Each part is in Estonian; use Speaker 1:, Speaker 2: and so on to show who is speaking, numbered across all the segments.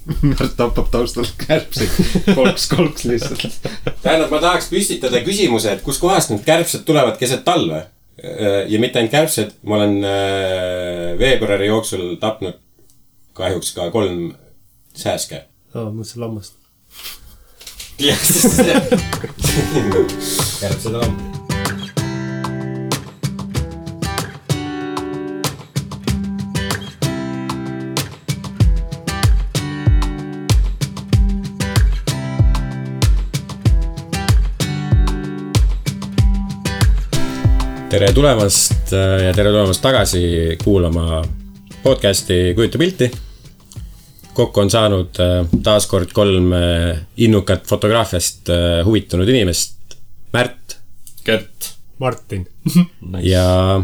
Speaker 1: Tappab taustal kärbseid kolks lihtsalt.
Speaker 2: Tähendab, ma tahaks püstitada küsimuse, et kus kohast need kärbsed tulevad keset talve. Ja mitte ainult kärbsed, ma olen veebruari jooksul tapnud kahjuks ka 3 sääske.
Speaker 3: Mõtlesin lammast.
Speaker 2: Jah, sest kärbsed on lamb. Tere tulemast ja tere tulemast tagasi kuulama podcasti Kujuta pilti. Kokku on saanud taaskord 3 innukat fotograafiast huvitunud inimest. Märt,
Speaker 1: Gert,
Speaker 3: Martin
Speaker 2: ja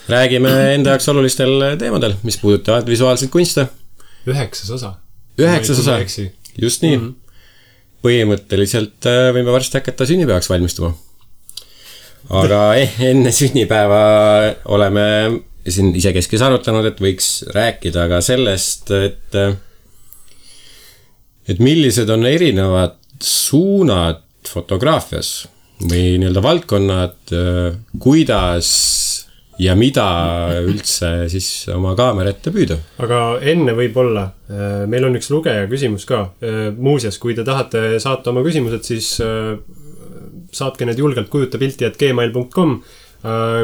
Speaker 2: räägime enda jaoks olulistel teemadel, mis puudutavad visuaalseid kunste.
Speaker 3: 9 osa.
Speaker 2: 9 osa, just nii. Põhimõtteliselt võime varsti hakata sünnipäevaks valmistuma. Aga enne sünnipäeva oleme siin isekeskis arutanud, et võiks rääkida ka sellest, et millised on erinevad suunad fotograafias või nii-öelda valdkonnad, kuidas ja mida üldse siis oma kaamera ette püüda.
Speaker 3: Aga enne võib-olla, meil on üks lugeja küsimus ka. Muuseas, kui te tahate saata oma küsimused, siis saatke need julgelt kujutapilti@gmail.com.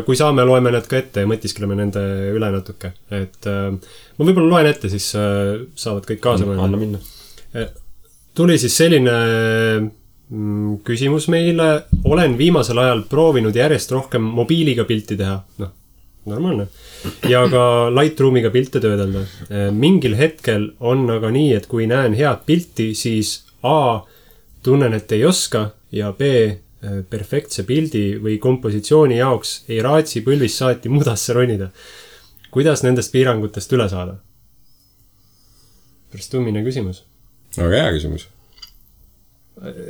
Speaker 3: Kui saame, loeme need ka ette ja mõtiskleme nende üle natuke. Et ma võib-olla loen ette, siis saavad kõik kaasa mõelda.
Speaker 1: Anna minna.
Speaker 3: Tuli siis selline küsimus meile. Olen viimasel ajal proovinud järjest rohkem mobiiliga pilti teha. Normaalne. Ja ka Lightroomiga pilte töödelda. Mingil hetkel on aga nii, et kui näen head pilti, siis A, tunnen, et ei oska ja B, perfektse pildi või kompositsiooni jaoks ei raatsi põlvis saati mudasse ronida. Kuidas nendest piirangutest üle saada? Pärast tummine küsimus.
Speaker 2: Väga hea küsimus.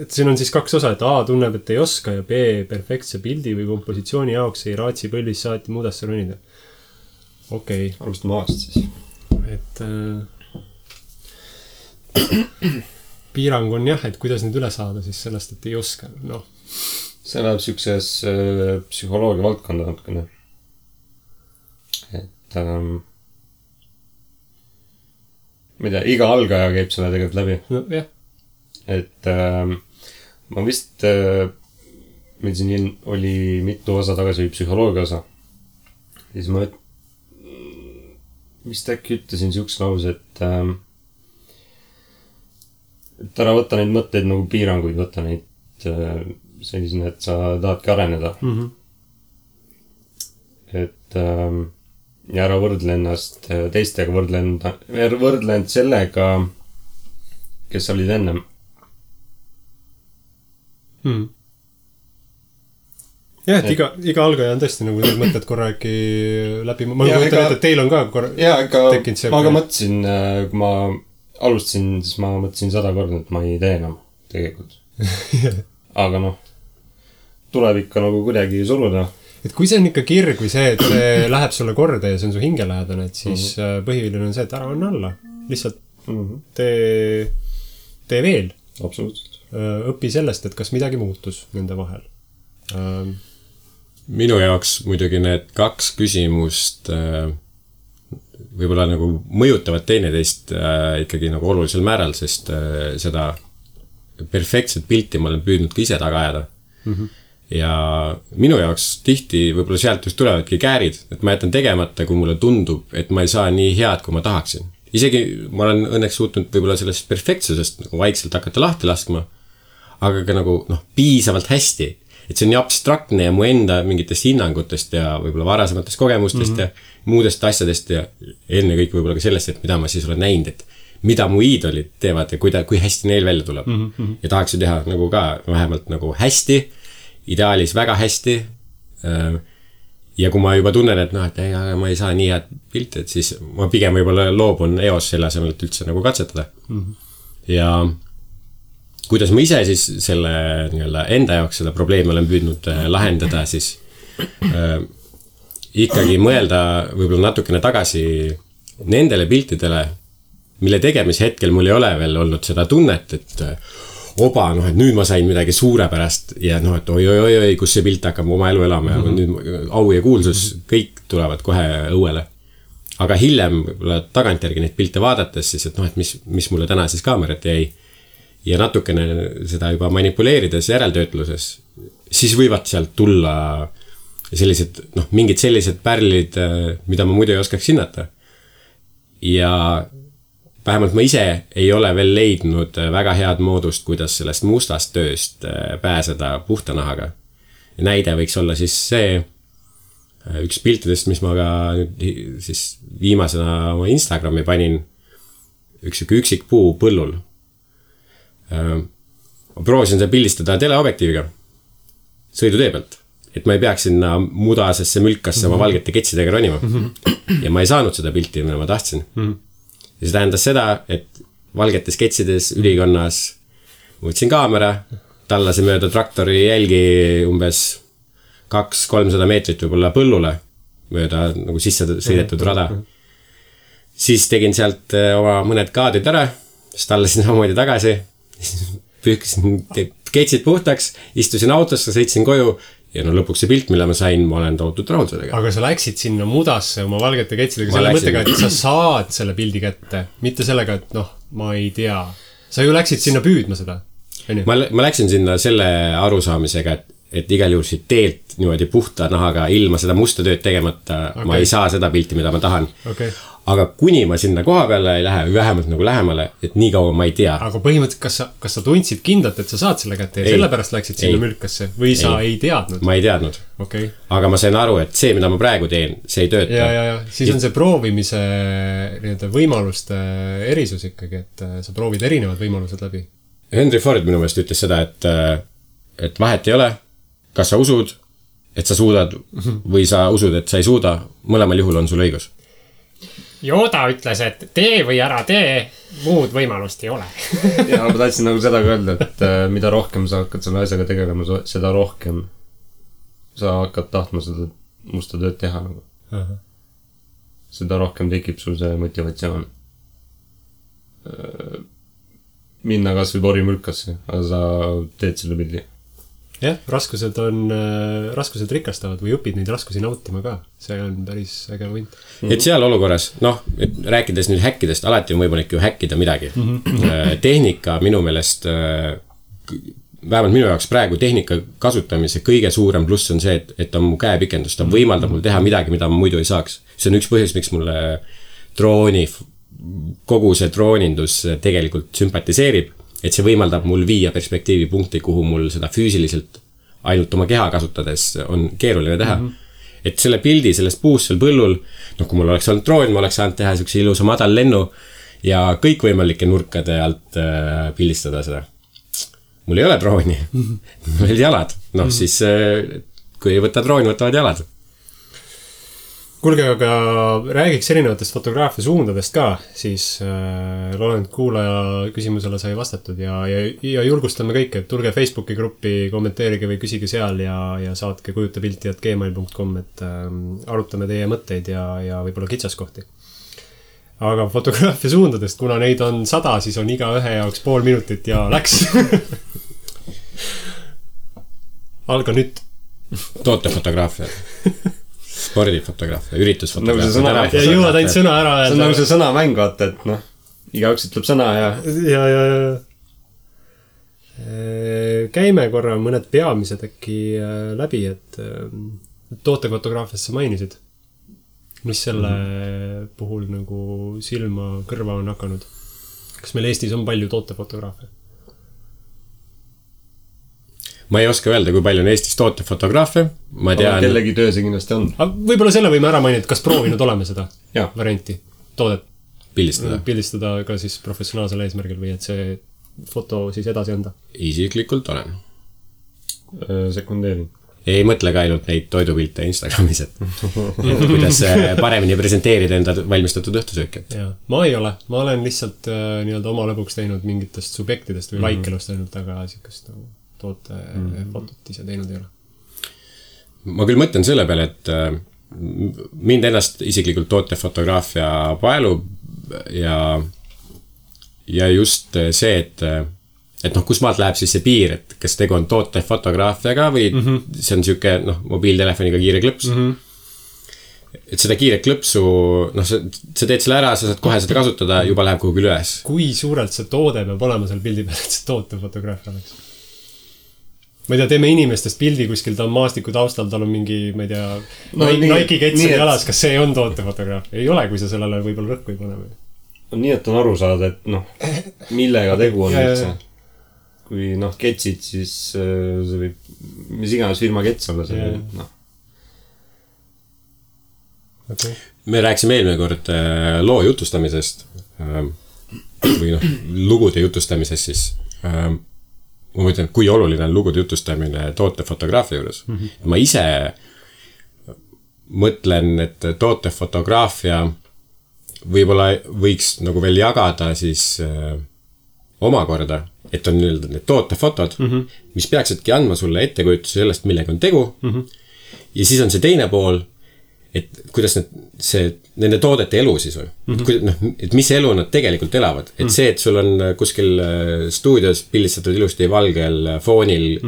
Speaker 3: Et siin on siis 2 osa, et A tunneb, et ei oska ja B, perfektse pildi või kompositsiooni jaoks ei raatsi põlvis saati mudasse ronida. Okei.
Speaker 1: Alustame aastast siis.
Speaker 3: Et piirang on jah, et kuidas nüüd üle saada siis sellest, et ei oska.
Speaker 1: See läheb siukses psühholoogia valdkonda natukene. Et ma ei tea, iga algaja käib selle tegelikult läbi.
Speaker 3: Jah.
Speaker 1: Et ma vist meil siin oli mitu osa tagasi või psühholoogia osa. Siis ma vist äkki ütlesin siuks lause, et ära võtta neid mõtteid nagu piiranguid, võtta neid sellisena, et sa tahadki areneda. Et ja ära võrdle ennast teistega, võrdle end sellega, kes sa olid ennem.
Speaker 3: Jah, et iga algaja on tõesti nagu need mõtted korra äkki läbi. Ma mõtlen, et teil on ka korra tekkinud see.
Speaker 1: Ma ka mõtlesin, kui ma alustasin, siis ma mõtlesin 100 korda, et ma ei tee enam tegelikult. Aga tuleb ikka nagu kuidagi suruda.
Speaker 3: Et kui see on ikka kirg või see, et see läheb sulle korda ja see on su hingelähedane, et siis põhiline on see, et ära on alla. Lihtsalt tee veel.
Speaker 1: Absoluutselt.
Speaker 3: Õpi sellest, et kas midagi muutus nende vahel.
Speaker 2: Minu jaoks muidugi need 2 küsimust võib-olla nagu mõjutavad teineteist ikkagi nagu olulisel määral, sest seda perfektset pilti ma olen püüdnud ka ise taga ajada. Ja minu jaoks tihti võib-olla sealt just tulevadki käärid, et ma jätan tegemata, kui mulle tundub, et ma ei saa nii head, kui ma tahaksin. Isegi ma olen õnneks suutnud võib-olla sellest perfektsusest nagu vaikselt hakata lahti laskma, aga ka nagu piisavalt hästi. Et see on nii abstraktne ja mu enda mingitest hinnangutest ja võib-olla varasematest kogemustest ja muudest asjadest ja enne kõik võib-olla ka sellest, et mida ma siis olen näinud, et mida mu iidolid teevad ja kui hästi neil välja tuleb. Ja tahaksin teha nagu ka vähemalt nagu hästi, ideaalis väga hästi. Ja kui ma juba tunnen, et ma ei saa nii head pilti, et siis ma pigem võib-olla loobun EOS selle asemel, et üldse nagu katsetada. Ja kuidas ma ise siis selle enda jaoks seda probleemi olen püüdnud lahendada, siis ikkagi mõelda võib-olla natukene tagasi nendele piltidele, mille tegemise hetkel mul ei ole veel olnud seda tunnet, et oba, noh, et nüüd ma sain midagi suurepärast ja noh, et oi, kus see pilt hakkab oma elu elama ja nüüd au ja kuulsus, kõik tulevad kohe õuele. Aga hiljem tagantjärgi neid pilte vaadates siis, et noh, et mis mulle täna siis kaamerat jäi ja natukene seda juba manipuleerides järeltöötluses, siis võivad sealt tulla sellised, noh, mingid sellised pärlid, mida ma muidu ei oskaks hinnata. Ja vähemalt ma ise ei ole veel leidnud väga head moodust, kuidas sellest mustast tööst pääseda puhta nahaga. Näide võiks olla siis see üks piltidest, mis ma ka siis viimasena oma Instagrami panin, üks üksik puu põllul. Ma proovisin seda pildistada teleobjektiiviga sõidutee pealt, et ma ei peaks sinna mudasesse mülkasse oma valgete ketsidega ronima. Ja ma ei saanud seda pilti, mida ma tahtsin. Ja see tähendas seda, et valgetes ketsides ülikonnas võtsin kaamera, tallasin mööda traktori jälgi umbes 200-300 meetrit võib-olla põllule mööda nagu sisse sõidetud rada. Siis tegin sealt oma mõned kaadrid ära, siis tallasin samamoodi tagasi, pühkisin ketsid puhtaks, istusin autosse, sõitsin koju ja no lõpuks see pilt, mille ma sain, ma olen tohutult rahul sellega.
Speaker 3: Aga sa läksid sinna mudasse oma valgete ketsidega selle mõttega, et sa saad selle pildi kätte, mitte sellega, et noh, ma ei tea. Sa ju läksid sinna püüdma seda.
Speaker 2: Ma läksin sinna selle arusaamisega, et igal juhul siit teelt niimoodi puhta nahaga ilma seda musta tööd tegemata ma ei saa seda pilti, mida ma tahan. Aga kuni ma sinna koha peale ei lähe, vähemalt nagu lähemale, et nii kaua ma ei tea.
Speaker 3: Aga põhimõtteliselt, kas sa tundsid kindlalt, et sa saad selle kätte ja sellepärast läksid sinna mülkasse või sa ei teadnud?
Speaker 2: Ma ei teadnud. Aga ma sain aru, et see, mida ma praegu teen, see ei tööta.
Speaker 3: Ja. Siis on see proovimise võimaluste erisus ikkagi, et sa proovid erinevad võimalused läbi.
Speaker 2: Henry Ford minu meelest ütles seda, et vahet ei ole, kas sa usud, et sa suudad või sa usud, et sa ei suuda, mõlemal juhul on sul õigus.
Speaker 4: Yoda ütles, et tee või ära tee, muud võimalust ei ole.
Speaker 1: Ja ma tahtsin nagu seda ka öelda, et mida rohkem sa hakkad selle asjaga tegelema, seda rohkem sa hakkad tahtma seda musta tööd teha. Seda rohkem tekib sul see motivatsioon. Minna kas või porimülkasse, aga sa teed selle pildi.
Speaker 3: Jah, raskused rikastavad või õpid neid raskusi nautima ka. See on päris äge võint.
Speaker 2: Et seal olukorras, noh, rääkides nüüd häkkidest, alati on võimalik ju häkkida midagi. Tehnika minu meelest, vähemalt minu jaoks praegu tehnika kasutamise kõige suurem pluss on see, et on mu käepikendus. Ta võimaldab mul teha midagi, mida ma muidu ei saaks. See on üks põhjus, miks mulle kogu see droonindus tegelikult sümpatiseerib. Et see võimaldab mul viia perspektiivi punkti, kuhu mul seda füüsiliselt ainult oma keha kasutades on keeruline teha. Et selle pildi sellest puust seal põllul, noh, kui mul oleks olnud droon, ma oleks saanud teha siukse ilusa madal lennu ja kõikvõimalike nurkade alt pildistada seda. Mul ei ole drooni, mul olid jalad. Noh, siis kui ei võta drooni, võtavad jalad.
Speaker 3: Kuulge, aga räägiks erinevatest fotograafia suundadest ka, siis loodan, et kuulaja küsimusele sai vastatud ja julgustame kõike, et tulge Facebooki gruppi, kommenteerige või küsige seal ja saatke kujutapilti@gmail.com, et arutame teie mõtteid ja võib-olla kitsaskohti. Aga fotograafia suundadest, kuna neid on 100, siis on iga ühe jaoks pool minutit ja läks. Alga nüüd.
Speaker 2: Tootefotograafia. Spordifotograafia, üritusfotograafia.
Speaker 3: Ja jõuad ainult sõna ära.
Speaker 1: See on nagu see sõnamäng, vaata, et noh, igaüks ütleb sõna ja...
Speaker 3: Käime korra mõned peamised äkki läbi, et tootefotograafia sa mainisid. Mis selle puhul nagu silma kõrva on hakanud? Kas meil Eestis on palju tootefotograafia?
Speaker 2: Ma ei oska öelda, kui palju on Eestis tootefotograafe. Ma tean...
Speaker 1: Aga kellegi töö see kindlasti on.
Speaker 3: Võib-olla selle võime ära mainida, kas proovinud oleme seda varianti, toodet pildistada ka siis professionaalsel eesmärgil või et see foto siis edasi anda?
Speaker 2: Isiklikult olen.
Speaker 1: Sekundeerin.
Speaker 2: Ei mõtle ka ainult neid toidupilte Instagramis, et kuidas paremini presenteerida enda valmistatud õhtusööki.
Speaker 3: Ma ei ole. Ma olen lihtsalt nii-öelda oma lõbuks teinud mingitest subjektidest või laikelust ainult, aga sikast toote fotot ise teinud ei ole.
Speaker 2: Ma küll mõtlen selle peale, et mind ennast isiklikult tootefotograafia paelub ja ja just see, et noh, kus maalt läheb siis see piir, et kas tegu on tootefotograafiaga või see on siuke, noh, mobiiltelefoniga kiire klõps. Et seda kiire klõpsu, noh, sa teed selle ära, sa saad kohe seda kasutada, juba läheb kuhugi üles.
Speaker 3: Kui suurelt see toode peab olema seal pildi peal, et see tootefotograafia oleks? Ma ei tea, teeme inimestest pildi kuskil, ta on maastiku taustal, tal on mingi, ma ei tea, Nike ketsel jalas, kas see on tootefotograafia? Ei ole, kui sa sellele võib-olla rõhku ei pane.
Speaker 1: Nii, et on aru saada, et noh, millega tegu on üldse. Kui noh, ketsid, siis see võib, mis iganes firma kets olla see, noh.
Speaker 2: Okay. Me rääksime eelmine kord loo jutustamisest või noh, lugude jutustamisest siis. Ma mõtlen, kui oluline on lugude jutustamine tootefotograafia juures. Ma ise mõtlen, et tootefotograafia võib-olla võiks nagu veel jagada siis omakorda, et on need tootefotod, mis peaksidki andma sulle ettekujutuse sellest, millega on tegu. Ja siis on see teine pool, et kuidas nende toodete elu siis või. Et mis elu nad tegelikult elavad. Et see, et sul on kuskil stuudios pildistatud ilusti valgel foonil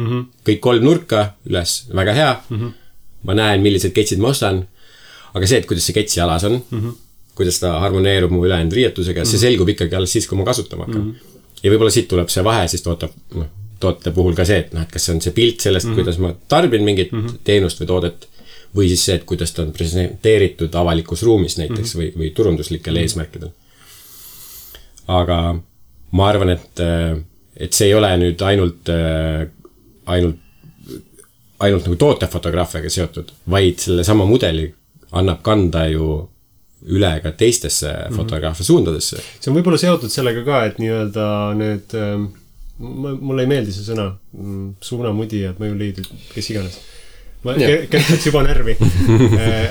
Speaker 2: kõik 3 nurka üles, väga hea. Ma näen, millised ketsid ma ostan. Aga see, et kuidas see ketsi alas on, kuidas ta harmoneerub mu ülejäänud riietusega, see selgub ikkagi alles siis, kui ma kasutama hakkan. Ja võib-olla siit tuleb see vahe siis toote puhul ka see, et kas see on see pilt sellest, kuidas ma tarbin mingit teenust või toodet, või siis see, et kuidas ta on presenteeritud avalikus ruumis näiteks või turunduslikel eesmärkidel. Aga ma arvan, et see ei ole nüüd ainult nagu tootefotograafiaga seotud, vaid selle sama mudeli annab kanda ju üle ka teistesse fotograafia suundadesse. See
Speaker 3: on võib-olla seotud sellega ka, et nii-öelda need, mulle ei meeldi see sõna, suunamudijad, mõjuliidrid, kes iganes. Ma kertaks juba närvi.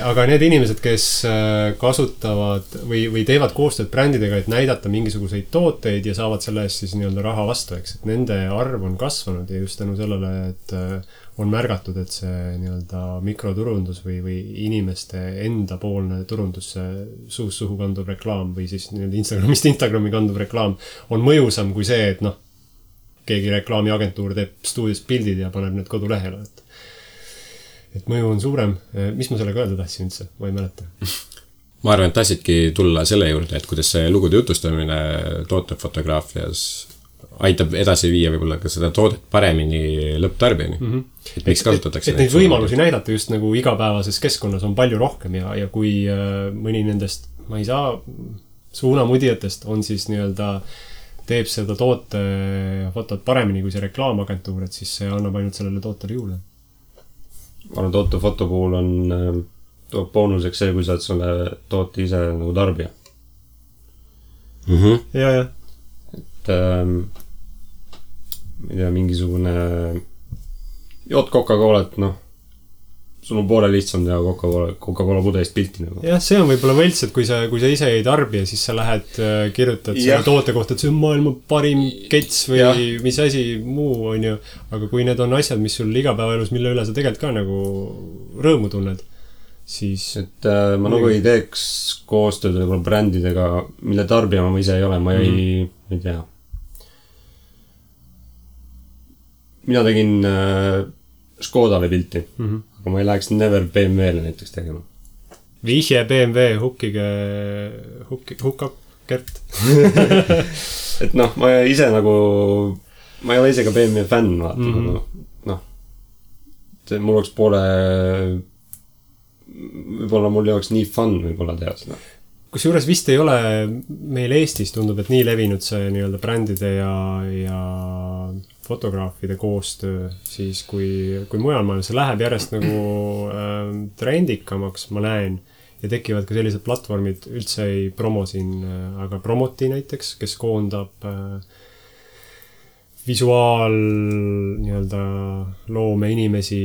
Speaker 3: Aga need inimesed, kes kasutavad või teevad koostööd brändidega, et näidata mingisuguseid tooteid ja saavad selle eest siis nii-öelda raha vastu, eks. Et nende arv on kasvanud ja just tänu sellele, et on märgatud, et see nii-öelda mikroturundus või inimeste enda poolne turundus, suust suhu kanduv reklaam või siis nii-öelda Instagramist Instagrami kanduv reklaam on mõjusam kui see, et noh, keegi reklaamiagentuur teeb stuudios pildid ja paneb need kodulehele, et mõju on suurem. Mis ma sellega öelda tahtsin üldse? Ma ei mäleta.
Speaker 2: Ma arvan, et tahtsidki tulla selle juurde, et kuidas see lugude jutustamine tootefotograafias aitab edasi viia võib-olla ka seda toodet paremini lõpptarbijani. Et miks kasutatakse
Speaker 3: neid võimalusi näidata just nagu igapäevases keskkonnas on palju rohkem ja kui mõni nendest, ma ei saa, suunamudijatest on siis nii-öelda teeb seda tootefotot paremini kui see reklaamagentuur, et siis see annab ainult sellele tootele juurde.
Speaker 1: Ma arvan, tootefoto puhul on boonuseks see, kui sa oled selle toote ise nagu tarbija.
Speaker 3: Ja.
Speaker 1: Et ma ei tea, mingisugune jood Coca-Colat, noh, sul on poole lihtsam teha Coca-Cola pudelist pilti nagu.
Speaker 3: Jah, see on võib-olla võlts, et kui sa ise ei tarbi ja siis sa lähed, kirjutad selle toote kohta, et see on maailma parim kets või mis asi muu on ju. Aga kui need on asjad, mis sul igapäevaelus, mille üle sa tegelikult ka nagu rõõmu tunned, siis... Et
Speaker 1: ma nagu ei teeks koostööd võib-olla brändidega, mille tarbija ma ise ei ole, ma ei tea. Mina tegin Škodale pilti, aga ma ei läheks never BMW-le näiteks tegema.
Speaker 3: Vihje BMW hukab Gert.
Speaker 1: Et noh, ma ise nagu, ma ei ole ise ka BMW fänn, vaata. Noh, mul oleks poole, võib-olla mul ei oleks nii fun võib-olla teha seda.
Speaker 3: Kusjuures vist ei ole meil Eestis tundub, et nii levinud see nii-öelda brändide ja fotograafide koostöö, siis kui mujal maailmas see läheb järjest nagu trendikamaks, ma näen, ja tekivad ka sellised platvormid, üldse ei promo siin, aga Promoti näiteks, kes koondab visuaal nii-öelda loome inimesi,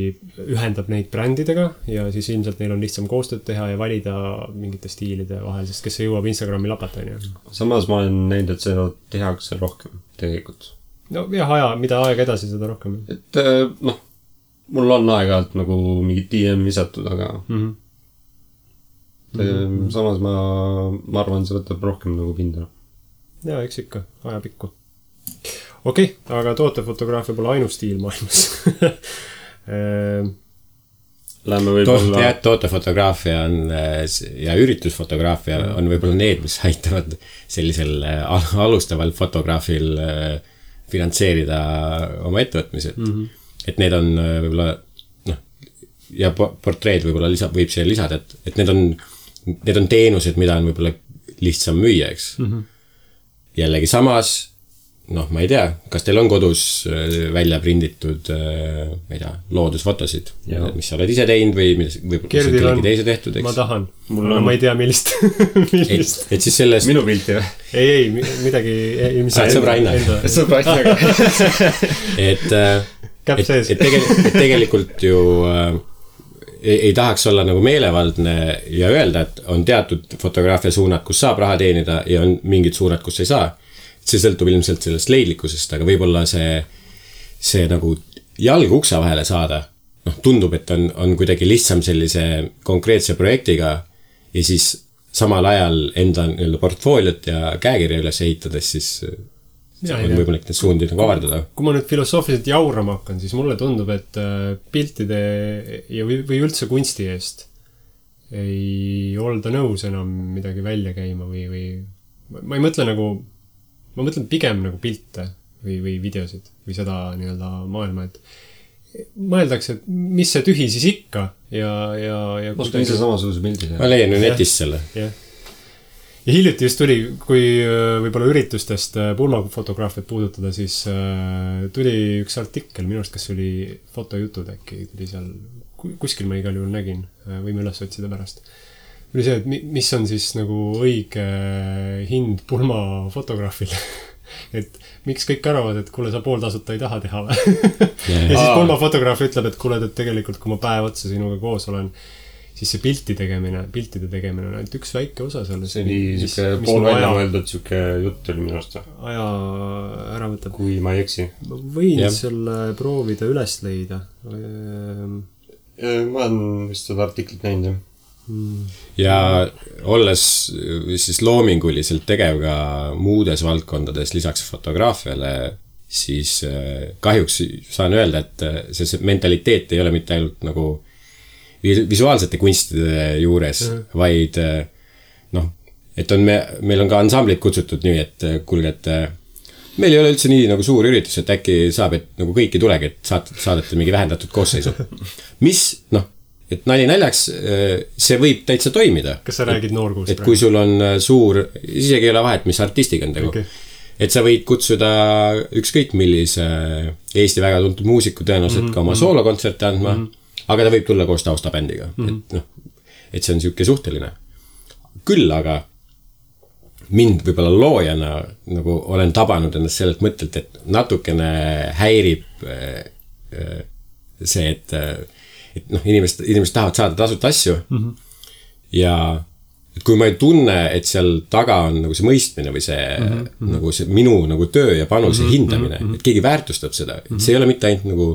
Speaker 3: ühendab neid brändidega ja siis ilmselt neil on lihtsam koostööd teha ja valida mingite stiilide vahel, sest kes jõuab Instagrami lapatani.
Speaker 1: Samas ma olen näinud, et seda tehakse rohkem tegelikult.
Speaker 3: No jah, mida aeg edasi, seda rohkem.
Speaker 1: Et noh, mul on aeg-ajalt nagu mingid DM visatud, aga samas ma arvan, see võtab rohkem nagu pinda.
Speaker 3: jaa, eks ikka, ajapikku. Okei, aga tootefotograafia pole ainus stiil maailmas.
Speaker 1: Lähme võib-olla...
Speaker 2: Tootefotograafia on ja üritusfotograafia on võib-olla need, mis aitavad sellisel alustaval fotograafil finantseerida oma ettevõtmised. Et need on võib-olla ja portreed võib-olla võib siia lisada, et need on teenused, mida on võib-olla lihtsam müüa, eks. Jällegi samas, ma ei tea, kas teil on kodus välja prinditud, ma ei tea, loodusfotosid, mis sa oled ise teinud või mis on kellegi teise tehtud, eks?
Speaker 3: Ma tahan, ma ei tea, millist.
Speaker 2: Et siis sellest...
Speaker 3: Minu pilti või? Ei, midagi...
Speaker 2: Sõbraina. Et tegelikult ju ei tahaks olla nagu meelevaldne ja öelda, et on teatud fotograafia suunad, kus saab raha teenida ja on mingid suunad, kus ei saa. See sõltub ilmselt sellest leidlikkusest, aga võib-olla see nagu jalg uksa vahele saada, tundub, et on kuidagi lihtsam sellise konkreetse projektiga ja siis samal ajal enda portfooliot ja käekirja üles ehitades, siis on võimalik need suundi nagu avardada.
Speaker 3: Kui ma nüüd filosoofiliselt jaurama hakkan, siis mulle tundub, et piltide või üldse kunsti eest ei olda nõus enam midagi välja käima või ma ei mõtle nagu ma mõtlen pigem nagu pilte või videosid või seda nii-öelda maailma, et mõeldakse, et mis see tühi siis ikka ja
Speaker 1: Oskun ise samasuguse pildi.
Speaker 2: Ma leian ju netist selle.
Speaker 3: Ja hiljuti just tuli, kui võib-olla üritustest pulmafotograafiat puudutada, siis tuli üks artikkel, minu arust, kas oli fotojutud äkki, tuli seal, kuskil ma igal juhul nägin, võime üles otsida pärast. Või see, et mis on siis nagu õige hind pulmafotograafil. Et miks kõik arvavad, et kuule, sa pooltasuta ei taha teha või? Ja siis pulmafotograaf ütleb, et kuule, et tegelikult kui ma päev otsa sinuga koos olen, siis see piltide tegemine on ainult üks väike osa sellest.
Speaker 1: See oli siuke pool välja mõeldud siuke jutt oli minu arust.
Speaker 3: Aja ära võtab.
Speaker 1: Kui ma ei eksi.
Speaker 3: Ma võin selle proovida üles leida.
Speaker 1: Ma olen vist seda artiklit näinud, jah.
Speaker 2: Ja olles siis loominguliselt tegev ka muudes valdkondades lisaks fotograafiale, siis kahjuks saan öelda, et see mentaliteet ei ole mitte ainult nagu visuaalsete kunstide juures, vaid et meil on ka ansamblid kutsutud nii, et kuulge, et meil ei ole üldse nii nagu suur üritus, et äkki saab, et nagu kõiki tulegi, et saadate mingi vähendatud koosseisu. Mis, et nali naljaks, see võib täitsa toimida.
Speaker 3: Kas sa räägid noorkuust?
Speaker 2: Et kui sul on suur, isegi ei ole vahet, mis artistiga on tegu. Et sa võid kutsuda ükskõik millise Eesti väga tuntud muusiku tõenäoliselt ka oma soolokontserte andma, aga ta võib tulla koos taustabändiga. Et see on siuke suhteline. Küll aga mind võib-olla loojana nagu olen tabanud ennast sellelt mõttelt, et natukene häirib see, et inimesed tahavad saada tasuta asju ja kui ma ei tunne, et seal taga on nagu see mõistmine või see, nagu see minu nagu töö ja panuse hindamine, et keegi väärtustab seda, et see ei ole mitte ainult nagu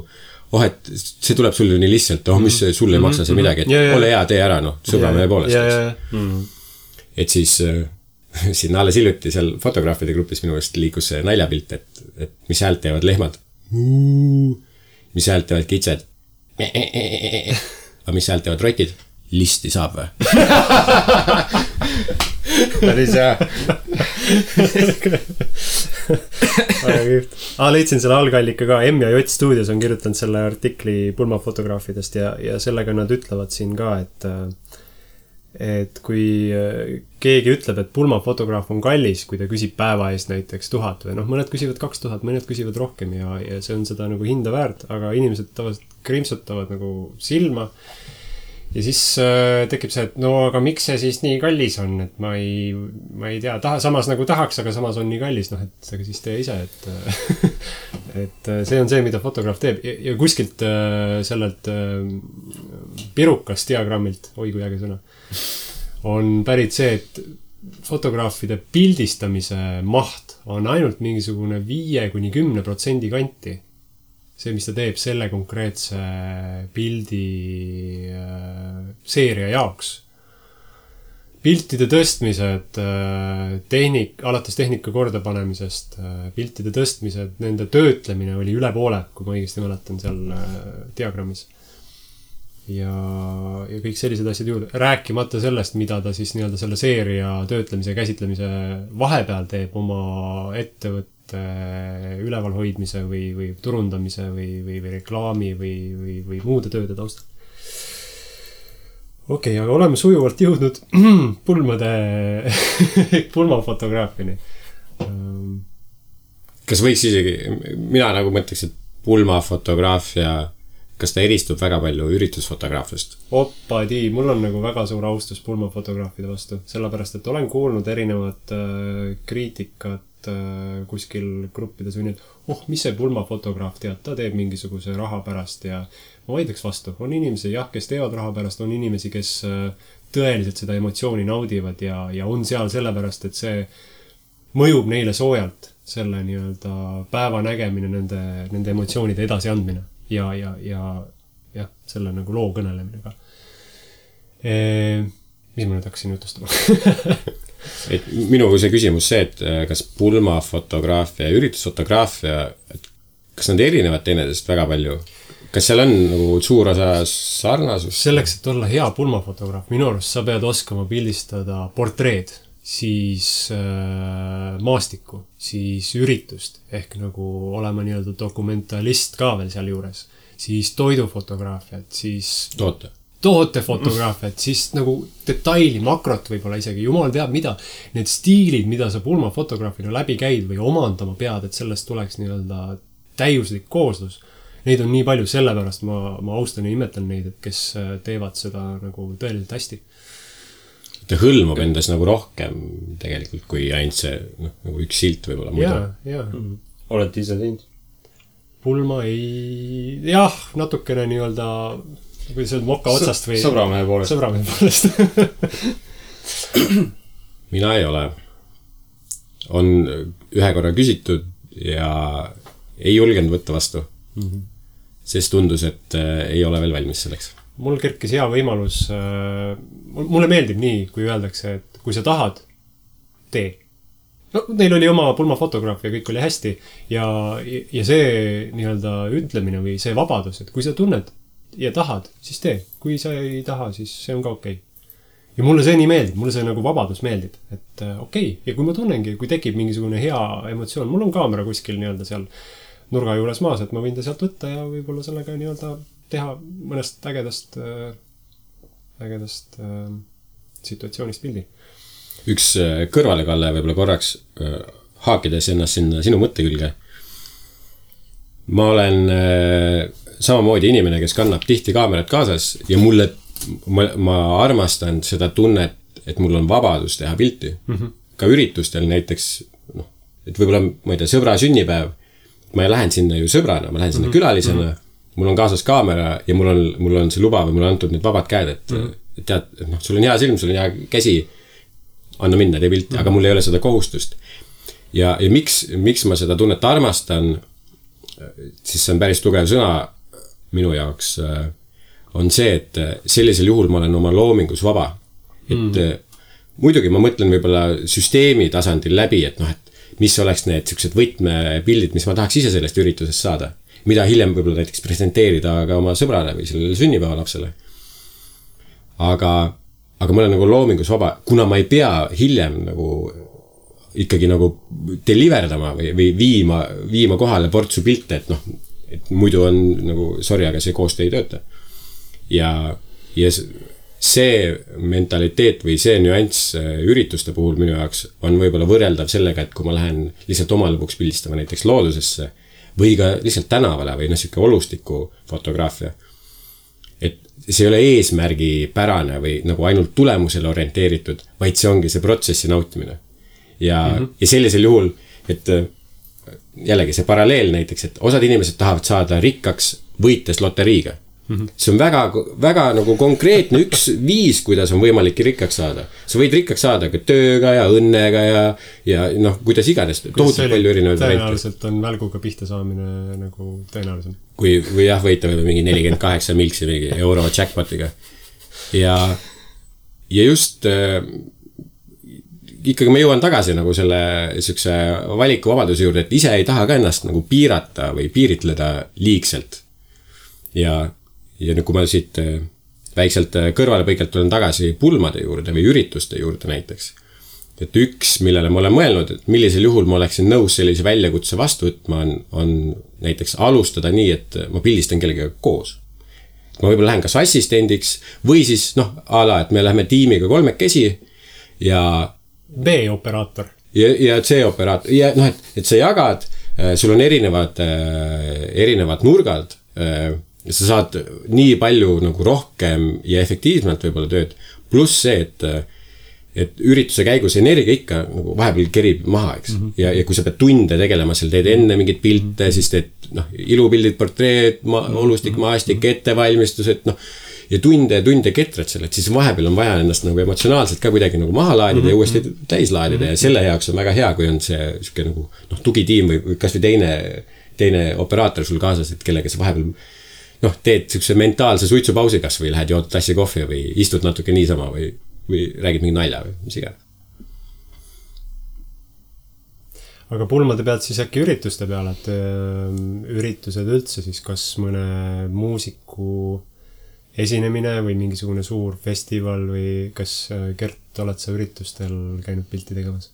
Speaker 2: et see tuleb sulle nii lihtsalt, mis sulle ei maksa see midagi, et ole hea, tee ära, sõbra meie poolest. Et siis siin alles hiljuti seal fotograafide grupis minu eest liikus see naljapilt, et mis häält teevad lehmad, mis häält teevad kitsed, aga mis häält teevad rotid, listi saab või? Päris hea.
Speaker 3: Leidsin selle algallika ka, M ja J Studios on kirjutanud selle artikli pulmafotograafidest ja sellega nad ütlevad siin ka, et kui keegi ütleb, et pulmafotograaf on kallis, kui ta küsib päeva eest näiteks 1000 või mõned küsivad 2000, mõned küsivad rohkem ja see on seda nagu hinda väärt, aga inimesed tavaliselt krimpsutavad nagu silma ja siis tekib see, et aga miks see siis nii kallis on, et ma ei tea, samas nagu tahaks, aga samas on nii kallis, et aga siis tee ise, et see on see, mida fotograaf teeb ja kuskilt sellelt pirukast diagrammilt, oi kui äge sõna, on pärit see, et fotograafide pildistamise maht on ainult mingisugune 5-10% kanti. See, mis ta teeb selle konkreetse pildi seeria jaoks. piltide tõstmised, alates tehnika kordapanemisest, piltide tõstmised, nende töötlemine oli üle poole, kui ma õigesti mäletan seal diagrammis. Ja kõik sellised asjad juurde. Rääkimata sellest, mida ta siis nii-öelda selle seeria töötlemise ja käsitlemise vahepeal teeb oma ettevõtte ülevalhoidmise või turundamise või reklaami või muude tööde taustal. Okei, aga oleme sujuvalt jõudnud pulmafotograafini.
Speaker 2: Kas võiks isegi, mina nagu mõtleks, et pulmafotograafia, kas ta eristub väga palju üritusfotograafiast?
Speaker 3: Oppadi, mul on nagu väga suur austus pulmafotograafide vastu, sellepärast, et olen kuulnud erinevat kriitikat kuskil gruppides või nii, et mis see pulmafotograaf tead, ta teeb mingisuguse raha pärast ja ma vaidleks vastu. On inimesi, jah, kes teevad raha pärast, on inimesi, kes tõeliselt seda emotsiooni naudivad ja on seal sellepärast, et see mõjub neile soojalt, selle nii-öelda päeva nägemine, nende emotsioonide edasi andmine ja selle nagu loo kõnelemine ka. Mis ma nüüd hakkasin jutustama?
Speaker 2: Et minu see küsimus see, et kas pulmafotograafia ja üritusfotograafia, kas nad erinevad teineteisest väga palju? Kas seal on nagu suur osa sarnasus?
Speaker 3: Selleks, et olla hea pulmafotograaf, minu arust sa pead oskama pildistada portreed, siis maastikku, siis üritust, ehk nagu olema nii-öelda dokumentalist ka veel seal juures, siis toidufotograafiat, siis tootefotograafiat, siis nagu detaili, makrot võib-olla isegi, jumal teab mida, need stiilid, mida sa pulmafotograafina läbi käid või omandama pead, et sellest tuleks nii-öelda täiuslik kooslus. Neid on nii palju, sellepärast ma austan ja imetlen neid, et kes teevad seda nagu tõeliselt hästi.
Speaker 2: Ta hõlmab endas nagu rohkem tegelikult, kui ainult see nagu üks silt võib-olla muidu.
Speaker 3: Jaa.
Speaker 1: Olete ise teinud?
Speaker 3: Pulma ei... Jah, natukene nii-öelda kui see on moka otsast või...
Speaker 1: Sõbramehe poolest.
Speaker 2: Mina ei ole. On ühe korra küsitud ja ei julgenud võtta vastu. Sest tundus, et ei ole veel valmis selleks.
Speaker 3: Mul kerkis hea võimalus... Mulle meeldib nii, kui öeldakse, et kui sa tahad, tee. No, neil oli oma pulmafotograaf ja kõik oli hästi. Ja see nii-öelda ütlemine või see vabadus, et kui sa tunned ja tahad, siis tee. Kui sa ei taha, siis see on ka okei. Ja mulle see nii meeldib, mulle see nagu vabadus meeldib. Et okei, ja kui ma tunnengi, kui tekib mingisugune hea emotsioon, mul on kaamera kuskil nii-öelda seal nurga juures maas, et ma võin ta sealt võtta ja võib-olla sellega nii-öelda teha mõnest ägedast situatsioonist pildi.
Speaker 2: Üks kõrvalekalle võib-olla korraks haakides ennast sinna sinu mõtte külge. Ma olen samamoodi inimene, kes kannab tihti kaamerat kaasas ja ma armastan seda tunnet, et mul on vabadus teha pilti. Ka üritustel näiteks, et võib-olla, ma ei tea, sõbra sünnipäev, ma lähen sinna ju sõbrana, ma lähen sinna külalisena, mul on kaasas kaamera ja mul on see luba või mul on antud need vabad käed, et tead, sul on hea silm, sul on hea käsi, anna minna, tee pilti, aga mul ei ole seda kohustust. Ja miks ma seda tunnet armastan, siis see on päris tugev sõna minu jaoks, on see, et sellisel juhul ma olen oma loomingus vaba. Et muidugi ma mõtlen võib-olla süsteemi tasandil läbi, et mis oleks need sellised võtmepildid, mis ma tahaks ise sellest üritusest saada. Mida hiljem võib-olla näiteks presenteerida ka oma sõbrale või sellele sünnipäeva lapsele. Aga ma olen nagu loomingus vaba, kuna ma ei pea hiljem nagu ikkagi nagu deliverdama või viima kohale portsu pilte, et muidu on nagu, sorry, aga see koostöö ei tööta. Ja see mentaliteet või see nüanss ürituste puhul minu jaoks on võib-olla võrreldav sellega, et kui ma lähen lihtsalt omal lõpuks pildistama näiteks loodusesse või ka lihtsalt tänavale või siuke olustiku fotograafia. Et see ei ole eesmärgi pärane või nagu ainult tulemusele orienteeritud, vaid see ongi see protsessi nautimine. Ja sellisel juhul, et jällegi see paralleel näiteks, et osad inimesed tahavad saada rikkaks võites loteriiga. See on väga, väga nagu konkreetne üks viis, kuidas on võimalik rikkaks saada. Sa võid rikkaks saada ka tööga ja õnnega ja kuidas iganes. Tohutult palju erinevaid variante.
Speaker 3: Tõenäoliselt on välguga pihta saamine nagu tõenäoliselt.
Speaker 2: Või jah, võita mingi 48 milksi mingi euro jackpotiga. Ja ja just ikkagi ma jõuan tagasi nagu selle siukse valikuvabaduse juurde, et ise ei taha ka ennast nagu piirata või piiritleda liigselt. Ja nüüd, kui ma siit väikselt kõrvalepõikelt tulen tagasi pulmade juurde või ürituste juurde näiteks. Et üks, millele ma olen mõelnud, et millisel juhul ma oleksin nõus sellise väljakutse vastu võtma, on näiteks alustada nii, et ma pildistan kellegagi koos. Ma võib-olla lähen kas assistendiks või siis et me läheme tiimiga 3 ja
Speaker 3: B-operaator.
Speaker 2: Ja C-operaator. Ja et sa jagad, sul on erinevad nurgad, sa saad nii palju nagu rohkem ja efektiivselt võib-olla tööd. Pluss see, et ürituse käigus energia ikka nagu vahepeal kerib maha, eks. Ja kui sa pead tunde tegelema, seal teed enne mingid pilte, siis teed ilupildid, portreed, olustik, maastik, ettevalmistused, ja tunde ketrad selle, et siis vahepeal on vaja ennast nagu emotsionaalselt ka kuidagi nagu maha laadida ja uuesti täis laadida ja selle jaoks on väga hea, kui on see siuke nagu tugitiim või kas või teine operaator sul kaasas, et kellega sa vahepeal teed siukse mentaalse suitsupausi kas või lähed jood tassi kohvi või istud natuke niisama või räägid mingi nalja või mis iganes.
Speaker 3: Aga pulmade pealt siis äkki ürituste peale, et üritused üldse siis kas mõne muusiku esinemine või mingisugune suur festival või kas Gert, oled sa üritustel käinud pilti tegemas?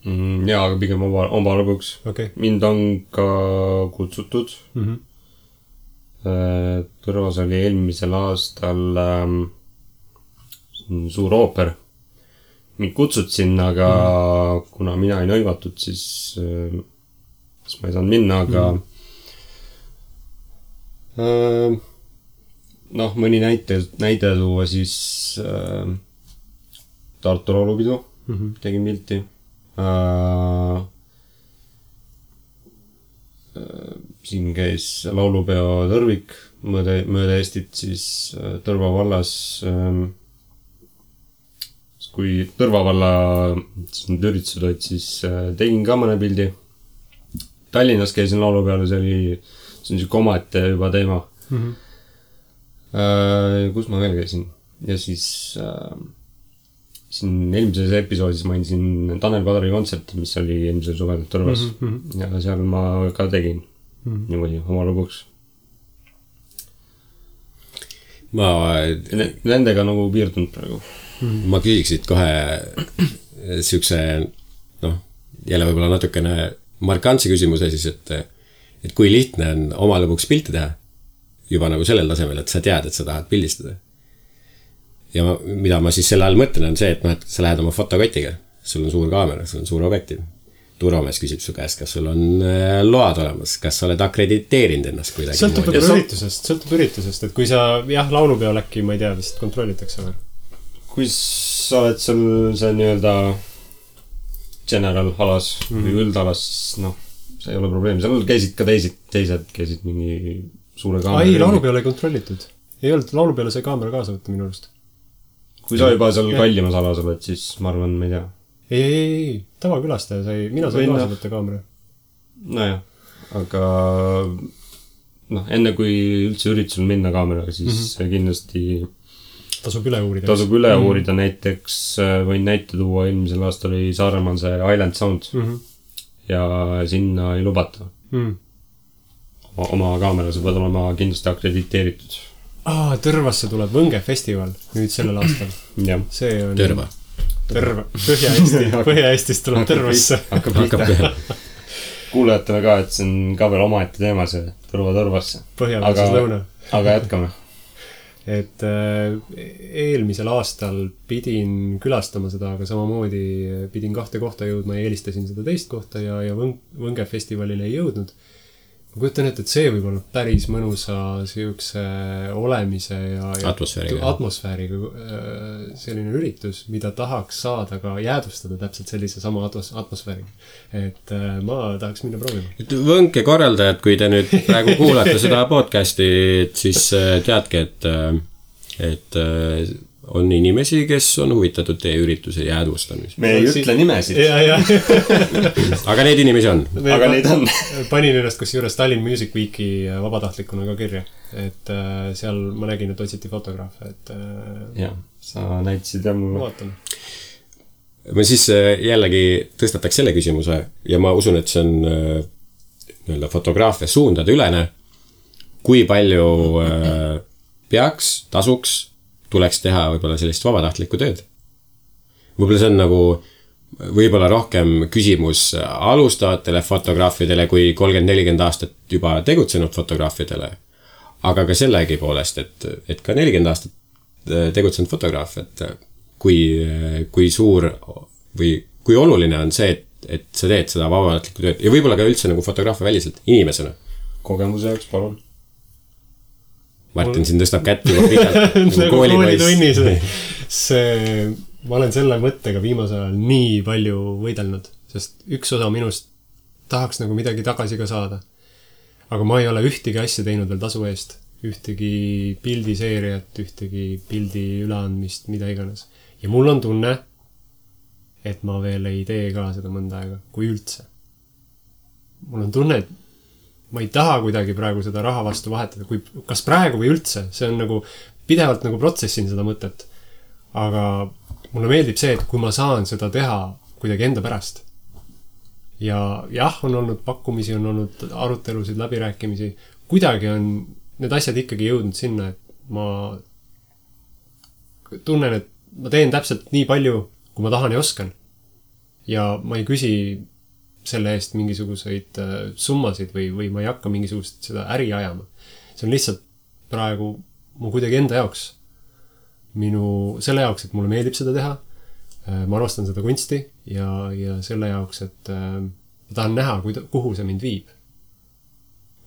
Speaker 1: Jaa, aga pigem oma lõbuks.
Speaker 3: Okay.
Speaker 1: Mind on ka kutsutud. Tõrvas oli eelmisel aastal suur ooper. Mind kutsud sinna, aga kuna mina ei nõivatud, siis ma ei saanud minna, aga mõni näide tuua siis Tartu laulupidu tegin pilti. Siin käis laulupeo Tõrvik mööda Eestit siis Tõrva vallas. Kui Tõrva valla need üritused olid, siis tegin ka mõne pildi. Tallinnas käisin laulupeale, see on siuke omaette juba teema. Kus ma veel käisin? Ja siis siin eelmises episoodis mainisin Tanel Padari kontserti, mis oli eelmisel suvel Tõrvas. Ja seal ma ka tegin niimoodi oma lõbuks. Nendega nagu piirdunud praegu.
Speaker 2: Ma küsiksid kohe siukse, jälle võib-olla natukene markantse küsimuse siis, et kui lihtne on oma lõbuks pilti teha juba nagu sellel tasemel, et sa tead, et sa tahad pildistada. Ja mida ma siis selle all mõtlen on see, et sa lähed oma fotokotiga, sul on suur kaamera, sul on suur objektiiv. Turvamees küsib su käest, kas sul on load olemas, kas sa oled akrediteerinud ennast kuidagi.
Speaker 3: Sõltub üritusest, et kui sa, laulupeol äkki, ma ei tea, vist kontrollitakse või?
Speaker 1: Kui sa oled see nii-öelda general alas või üldalas, siis see ei ole probleem. Seal käisid ka teised käisid mingi suure kaamera.
Speaker 3: Ei, laulupeol ei kontrollitud. Ei olnud, laulupeole sai kaamera kaasa võtta minu arust.
Speaker 1: Kui sa juba seal kallimas alas oled, siis ma arvan, ma ei tea.
Speaker 3: Ei, tavakülastaja sai, mina sain kaasa võtta kaamera.
Speaker 1: Nojah, aga enne kui üldse üritusel minna kaameraga, siis kindlasti
Speaker 3: tasub üle uurida. Näiteks võin näite tuua, eelmisel aastal oli Saaremaal see Island Sound ja sinna ei lubata. Oma kaamera, sa pead olema kindlasti akrediteeritud. Tõrvasse tuleb Võnge festival nüüd sellel aastal. See on
Speaker 2: Tõrva.
Speaker 3: Põhja-Eestist tuleb Tõrvasse.
Speaker 2: Hakkab peale.
Speaker 1: Kuulajatele ka, et see on ka veel omaette teema, see Tõrvasse.
Speaker 3: Põhja-Eestis lõuna.
Speaker 1: Aga jätkame.
Speaker 3: Et eelmisel aastal pidin külastama seda, aga samamoodi pidin 2 kohta jõudma ja eelistasin seda teist kohta ja Võnge festivalile ei jõudnud. Ma kujutan ette, et see võib olla päris mõnusa siukse olemise ja atmosfääriga selline üritus, mida tahaks saada ka jäädustada täpselt sellise sama atmosfääriga. Et ma tahaks minna proovima.
Speaker 2: Võnke korraldajad, kui te nüüd praegu kuulate seda podcasti, siis teadke, et on inimesi, kes on huvitatud teie ürituse jäädvustamisest.
Speaker 1: Me ei ütle nimesid.
Speaker 2: Aga neid inimesi on.
Speaker 1: Aga neid on.
Speaker 3: Panin ennast kusjuures Tallinn Music Weeki vabatahtlikuna ka kirja. Et seal ma nägin, et otsiti fotograafe.
Speaker 1: Jah, sa näitasid ja mulle.
Speaker 3: Vaatan.
Speaker 2: Ma siis jällegi tõstataks selle küsimuse ja ma usun, et see on fotograafia suundade ülene. Kui palju tasuks, tuleks teha võib-olla sellist vabatahtlikku tööd. Võib-olla see on nagu võib-olla rohkem küsimus alustavatele fotograafidele kui 30-40 aastat juba tegutsenud fotograafidele. Aga ka sellegi poolest, et ka 40 aastat tegutsenud fotograaf, et kui suur või kui oluline on see, et sa teed seda vabatahtlikku tööd ja võib-olla ka üldse nagu fotograafia väliselt inimesena.
Speaker 1: Kogemuse jaoks, palun.
Speaker 2: Martin siin tõstab kätt juba pikalt.
Speaker 3: Nagu koolitunnis. Ma olen selle mõttega viimasel ajal nii palju võidelnud, sest üks osa minust tahaks nagu midagi tagasi ka saada. Aga ma ei ole ühtegi asja teinud veel tasu eest. Ühtegi pildiseeriat, ühtegi pildi üleandmist, mida iganes. Ja mul on tunne, et ma veel ei tee ka seda mõnda aega, kui üldse. Mul on tunne, et ma ei taha kuidagi praegu seda raha vastu vahetada, kas praegu või üldse, see on nagu pidevalt nagu protsessin seda mõtet. Aga mulle meeldib see, et kui ma saan seda teha kuidagi enda pärast. Ja jah, on olnud pakkumisi, on olnud arutelusid, läbirääkimisi. Kuidagi on need asjad ikkagi jõudnud sinna, et ma tunnen, et ma teen täpselt nii palju, kui ma tahan ja oskan. Ja ma ei küsi selle eest mingisuguseid summasid või ma ei hakka mingisugust seda äri ajama. See on lihtsalt praegu mu kuidagi enda jaoks. Selle jaoks, et mulle meeldib seda teha. Ma armastan seda kunsti ja selle jaoks, et ma tahan näha, kuhu see mind viib.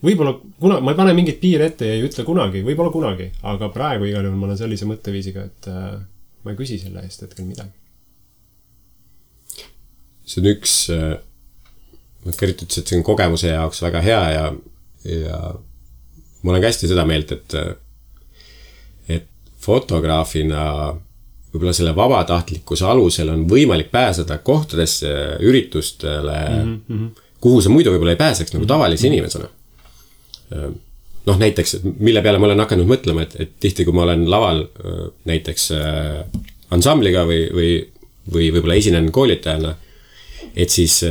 Speaker 3: Võib-olla ma ei pane mingit piir ette ja ei ütle kunagi, võib-olla kunagi, aga praegu igal juhul ma olen sellise mõtteviisiga, et ma ei küsi selle eest hetkel midagi.
Speaker 2: See on üks Kärit ütles, et see on kogemuse jaoks väga hea ja ma olen ka hästi seda meelt, et fotograafina võib-olla selle vabatahtlikkuse alusel on võimalik pääseda kohtadesse, üritustele, kuhu sa muidu võib-olla ei pääseks nagu tavalise inimesena. Näiteks, mille peale ma olen hakanud mõtlema, et tihti, kui ma olen laval näiteks ansambliga või võib-olla esinen koolitajana, et siis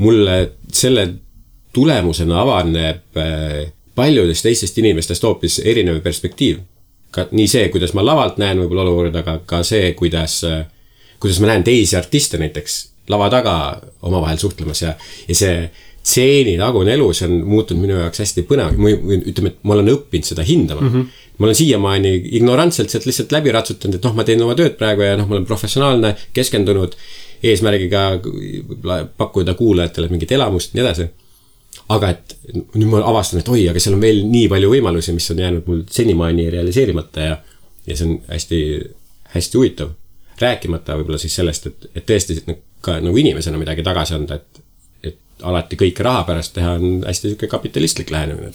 Speaker 2: mulle selle tulemusena avaneb paljudest teistest inimestest hoopis erinev perspektiiv. Ka nii see, kuidas ma lavalt näen võib-olla olukorda, aga ka see, kuidas ma näen teisi artiste näiteks lava taga omavahel suhtlemas ja see tseeni tagune elu, see on muutunud minu jaoks hästi põnev. Ütleme, et ma olen õppinud seda hindama. Ma olen siiamaani ignorantselt sealt lihtsalt läbi ratsutanud, et ma teen oma tööd praegu ja ma olen professionaalne, keskendunud eesmärgiga pakkuda kuulajatele mingit elamust ja nii edasi. Aga et nüüd ma avastan, et aga seal on veel nii palju võimalusi, mis on jäänud mul senimaani realiseerimata ja see on hästi, hästi huvitav. Rääkimata võib-olla siis sellest, et tõesti ka nagu inimesena midagi tagasi anda, et alati kõike raha pärast teha on hästi selline kapitalistlik lähenemine.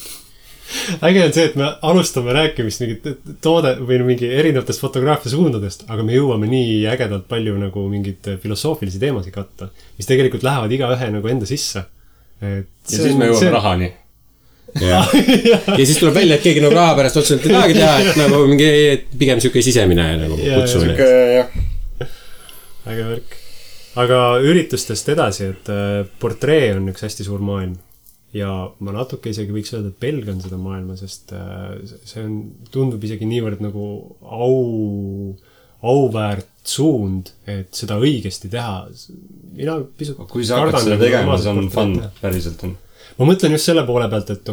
Speaker 3: Äge on see, et me alustame rääkimist mingit toode või mingi erinevatest fotograafia suundadest, aga me jõuame nii ägedalt palju nagu mingid filosoofilisi teemasid katta, mis tegelikult lähevad iga ühe nagu enda sisse.
Speaker 1: Ja siis me jõuame rahani.
Speaker 2: Ja siis tuleb välja, et keegi nagu raha pärast otseselt ei tahagi teha, et nagu mingi pigem selline sisemine nagu kutsumine.
Speaker 3: Äge värk. Aga üritustest edasi, et portree on üks hästi suur maailm. Ja ma natuke isegi võiks öelda, et pelgan seda maailma, sest see tundub isegi niivõrd nagu auväärt suund, et seda õigesti teha. Mina pisut
Speaker 1: kui sa hakkad seda tegema, see on fun, päriselt on.
Speaker 3: Ma mõtlen just selle poole pealt, et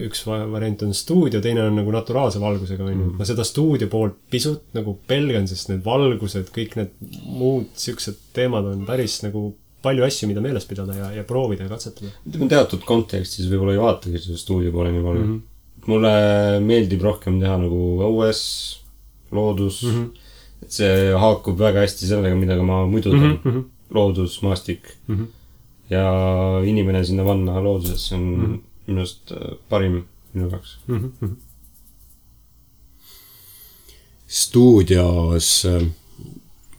Speaker 3: üks variant on stuudio, teine on nagu naturaalse valgusega. Ma seda stuudio poolt pisut nagu pelgan, sest need valgused, kõik need muud siuksed teemad on päris nagu palju asju, mida meeles pidada ja proovida ja katsetada.
Speaker 1: Ütleme teatud kontekstis võib-olla ei vaatagi seda stuudio poole nii palju. Mulle meeldib rohkem teha nagu õues, loodus. Et see haakub väga hästi sellega, mida ma muidu teen. Loodus, maastik. Ja inimene sinna vanna looduses on minust parim minu jaoks.
Speaker 2: stuudios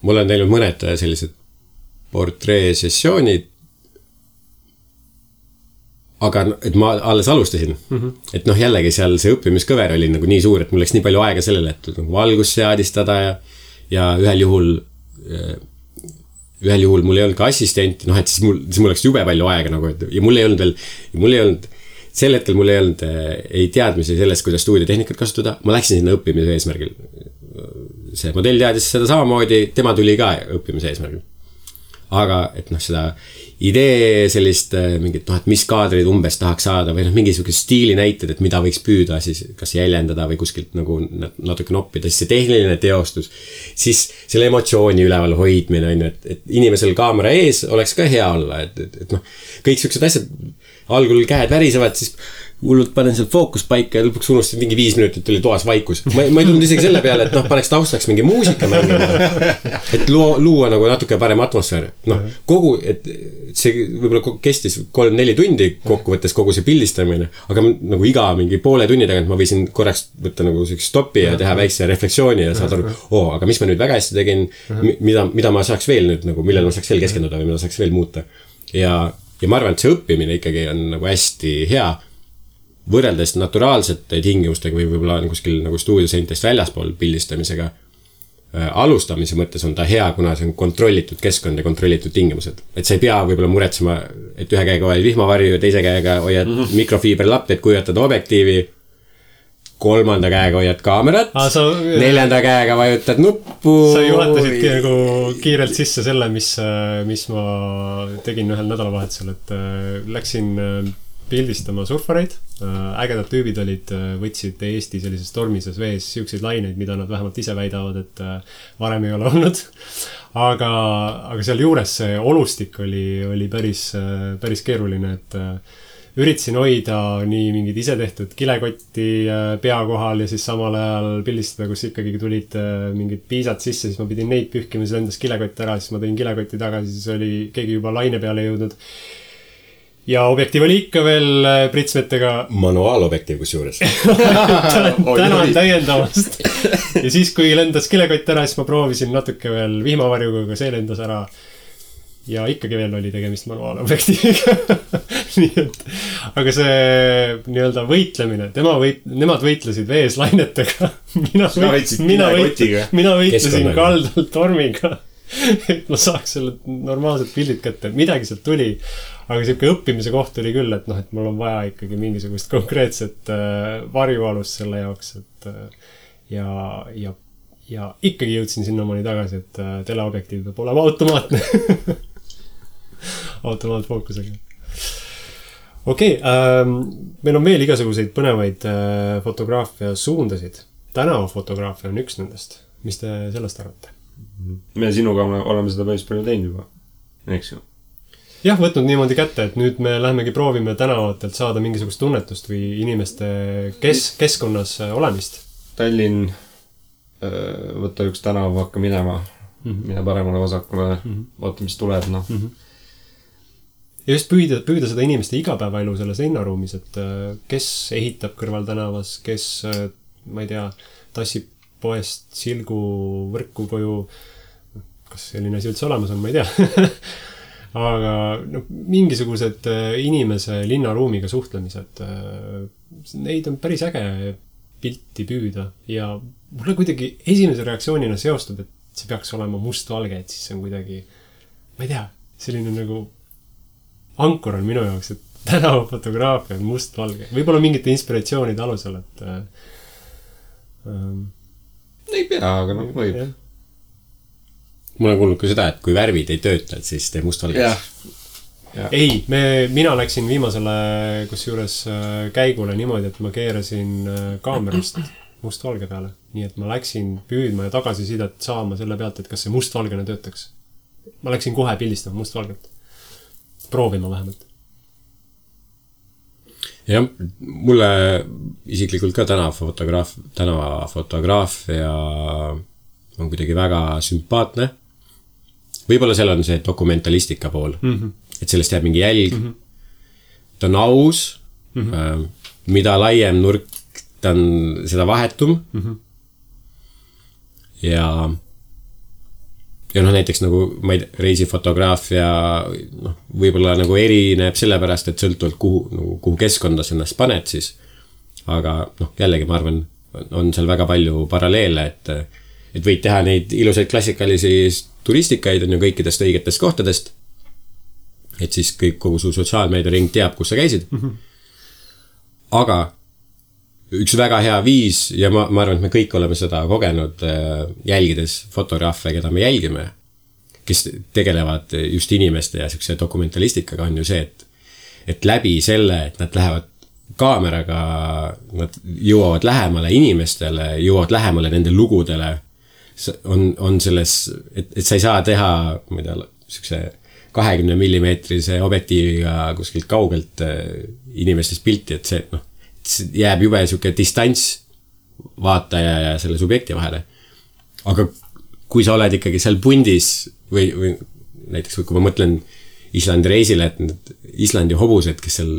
Speaker 2: mul on teinud mõned sellised portreesessioonid, aga et ma alles alustasin. Et jällegi seal see õppimiskõver oli nagu nii suur, et mul läks nii palju aega sellele, et nagu valgust seadistada ja ühel juhul mul ei olnud ka assistenti, et siis mul läks jube palju aega nagu, ja mul ei olnud sel hetkel mul ei olnud ei teadmisi sellest, kuidas stuudiotehnikat kasutada. Ma läksin sinna õppimise eesmärgil. See modell teadis seda samamoodi, tema tuli ka õppimise eesmärgil. Aga et seda idee sellist mingit, et mis kaadrid umbes tahaks saada või mingisugune stiili näited, et mida võiks püüda siis kas jäljendada või kuskilt nagu natuke noppida, siis see tehniline teostus, siis selle emotsiooni üleval hoidmine on, et inimesel kaamera ees oleks ka hea olla, et kõik siuksed asjad algul käed värisevad, siis hullult panen seal fookuspaika ja lõpuks unustasin mingi 5 minutit oli toas vaikus. Ma ei tulnud isegi selle peale, et paneks taustaks mingi muusika mängima, et luua nagu natuke parem atmosfäär. Et see võib-olla kestis 3-4 tundi kokkuvõttes kogu see pildistamine, aga nagu iga mingi poole tunni tagant ma võisin korraks võtta nagu stoppi ja teha väikse refleksiooni ja saada aru, aga mis ma nüüd väga hästi tegin, mida ma saaks veel nüüd nagu, millele ma saaks veel keskenduda või mida saaks veel muuta. Ja ma arvan, et see õppimine ikkagi on nagu hästi hea võrreldes naturaalsete tingimustega või võib-olla kuskil nagu stuudioseintest väljaspool pildistamisega. Alustamise mõttes on ta hea, kuna see on kontrollitud keskkond ja kontrollitud tingimused. Et sa ei pea võib-olla muretsema, et ühe käega hoiad vihmavarju ja teise käega hoiad mikrofiiberlapped, kujutad objektiivi, 3. käega hoiad kaamerat, 4. käega vajutad nuppu.
Speaker 3: Sa juhatasidki nagu kiirelt sisse selle, mis ma tegin ühel nädalavahetusel, et läksin pildistama surfareid. Ägedad tüübid olid, võtsid Eesti sellises tormises vees siukseid laineid, mida nad vähemalt ise väidavad, et varem ei ole olnud. Aga seal juures see olustik oli päris keeruline, et üritasin hoida nii mingid ise tehtud kilekotti pea kohal ja siis samal ajal pildistada, kus ikkagi tulid mingid piisad sisse, siis ma pidin neid pühkima, siis endas kilekott ära, siis ma tõin kilekotti tagasi, siis oli keegi juba laine peale jõudnud. Ja objektiiv oli ikka veel pritsmetega.
Speaker 2: Manuaalobjektiiv kus juures.
Speaker 3: Tänan täiendavast. Ja siis, kui lendas kilekott ära, siis ma proovisin natuke veel vihmavarjuga, aga see lendas ära. Ja ikkagi veel oli tegemist manuaalobjektiiviga. Nii et, aga see nii-öelda võitlemine, nemad võitlesid vees lainetega. Mina võitlesin kaldalt tormiga. Et ma saaks selle normaalsed pildid kätte, midagi sealt tuli, aga siuke õppimise koht oli küll, et et mul on vaja ikkagi mingisugust konkreetset varjualust selle jaoks, et ja ikkagi jõudsin sinnamaani tagasi, et teleobjektiiv peab olema automaatne. Automaatfookusega. Okei, meil on veel igasuguseid põnevaid fotograafia suundasid. Tänavafotograafia on üks nendest. Mis te sellest arvate?
Speaker 1: Me sinuga oleme seda päris palju teinud juba, eks ju?
Speaker 3: Jah, võtnud niimoodi kätte, et nüüd me lähemegi proovime tänavatelt saada mingisugust tunnetust või inimeste keskkonnas olemist.
Speaker 1: Tallinn, võtta üks tänav, hakka minema, mine paremale vasakule, vaata, mis tuleb, Ja just püüda seda inimeste igapäevaelu selles linnaruumis, et kes ehitab kõrval tänavas, kes, ma ei tea, tassib poest silgu võrku koju, kas selline asi üldse olemas on, ma ei tea. Aga mingisugused inimese linnaruumiga suhtlemised, neid on päris äge pilti püüda ja mulle kuidagi esimese reaktsioonina seostub, et see peaks olema mustvalge, et siis see on kuidagi, ma ei tea, selline nagu ankor on minu jaoks, et tänavafotograafia on mustvalge. Võib-olla mingite inspiratsioonide alusel, et ei pea, aga võib.
Speaker 2: Mul on kuulnud ka seda, et kui värvid ei tööta, et siis teeb mustvalgeks.
Speaker 3: Ei, mina läksin viimasele kusjuures käigule niimoodi, et ma keerasin kaamerast mustvalge peale. Nii et ma läksin püüdma ja tagasisidet saama selle pealt, et kas see mustvalgena töötaks. Ma läksin kohe pildistama mustvalget. Proovima vähemalt.
Speaker 2: Jah, mulle isiklikult ka tänavafotograafia on kuidagi väga sümpaatne. Võib-olla seal on see dokumentalistika pool, et sellest jääb mingi jälg. Ta on aus, mida laiem nurk ta on seda vahetum. ja noh, näiteks nagu ma ei tea, reisifotograafia võib-olla nagu erineb sellepärast, et sõltuvalt kuhu keskkonda sa ennast paned siis. Aga noh, jällegi ma arvan, on seal väga palju paralleele, et võid teha neid ilusaid klassikalisi turistikaid on ju kõikidest õigetest kohtadest. Et siis kogu su sotsiaalmeedia ring teab, kus sa käisid. Aga üks väga hea viis ja ma arvan, et me kõik oleme seda kogenud jälgides fotograafe, keda me jälgime, kes tegelevad just inimeste ja siukse dokumentalistikaga on ju see, et läbi selle, et nad lähevad kaameraga, nad jõuavad lähemale inimestele, jõuavad lähemale nende lugudele, on selles, et sa ei saa teha, ma ei tea, siukse 20 millimeetrise objektiiviga kuskilt kaugelt inimestest pilti, et see jääb jube siuke distants vaataja ja selle subjekti vahele. Aga kui sa oled ikkagi seal pundis või näiteks kui ma mõtlen Islandi reisile, et need Islandi hobused, kes seal,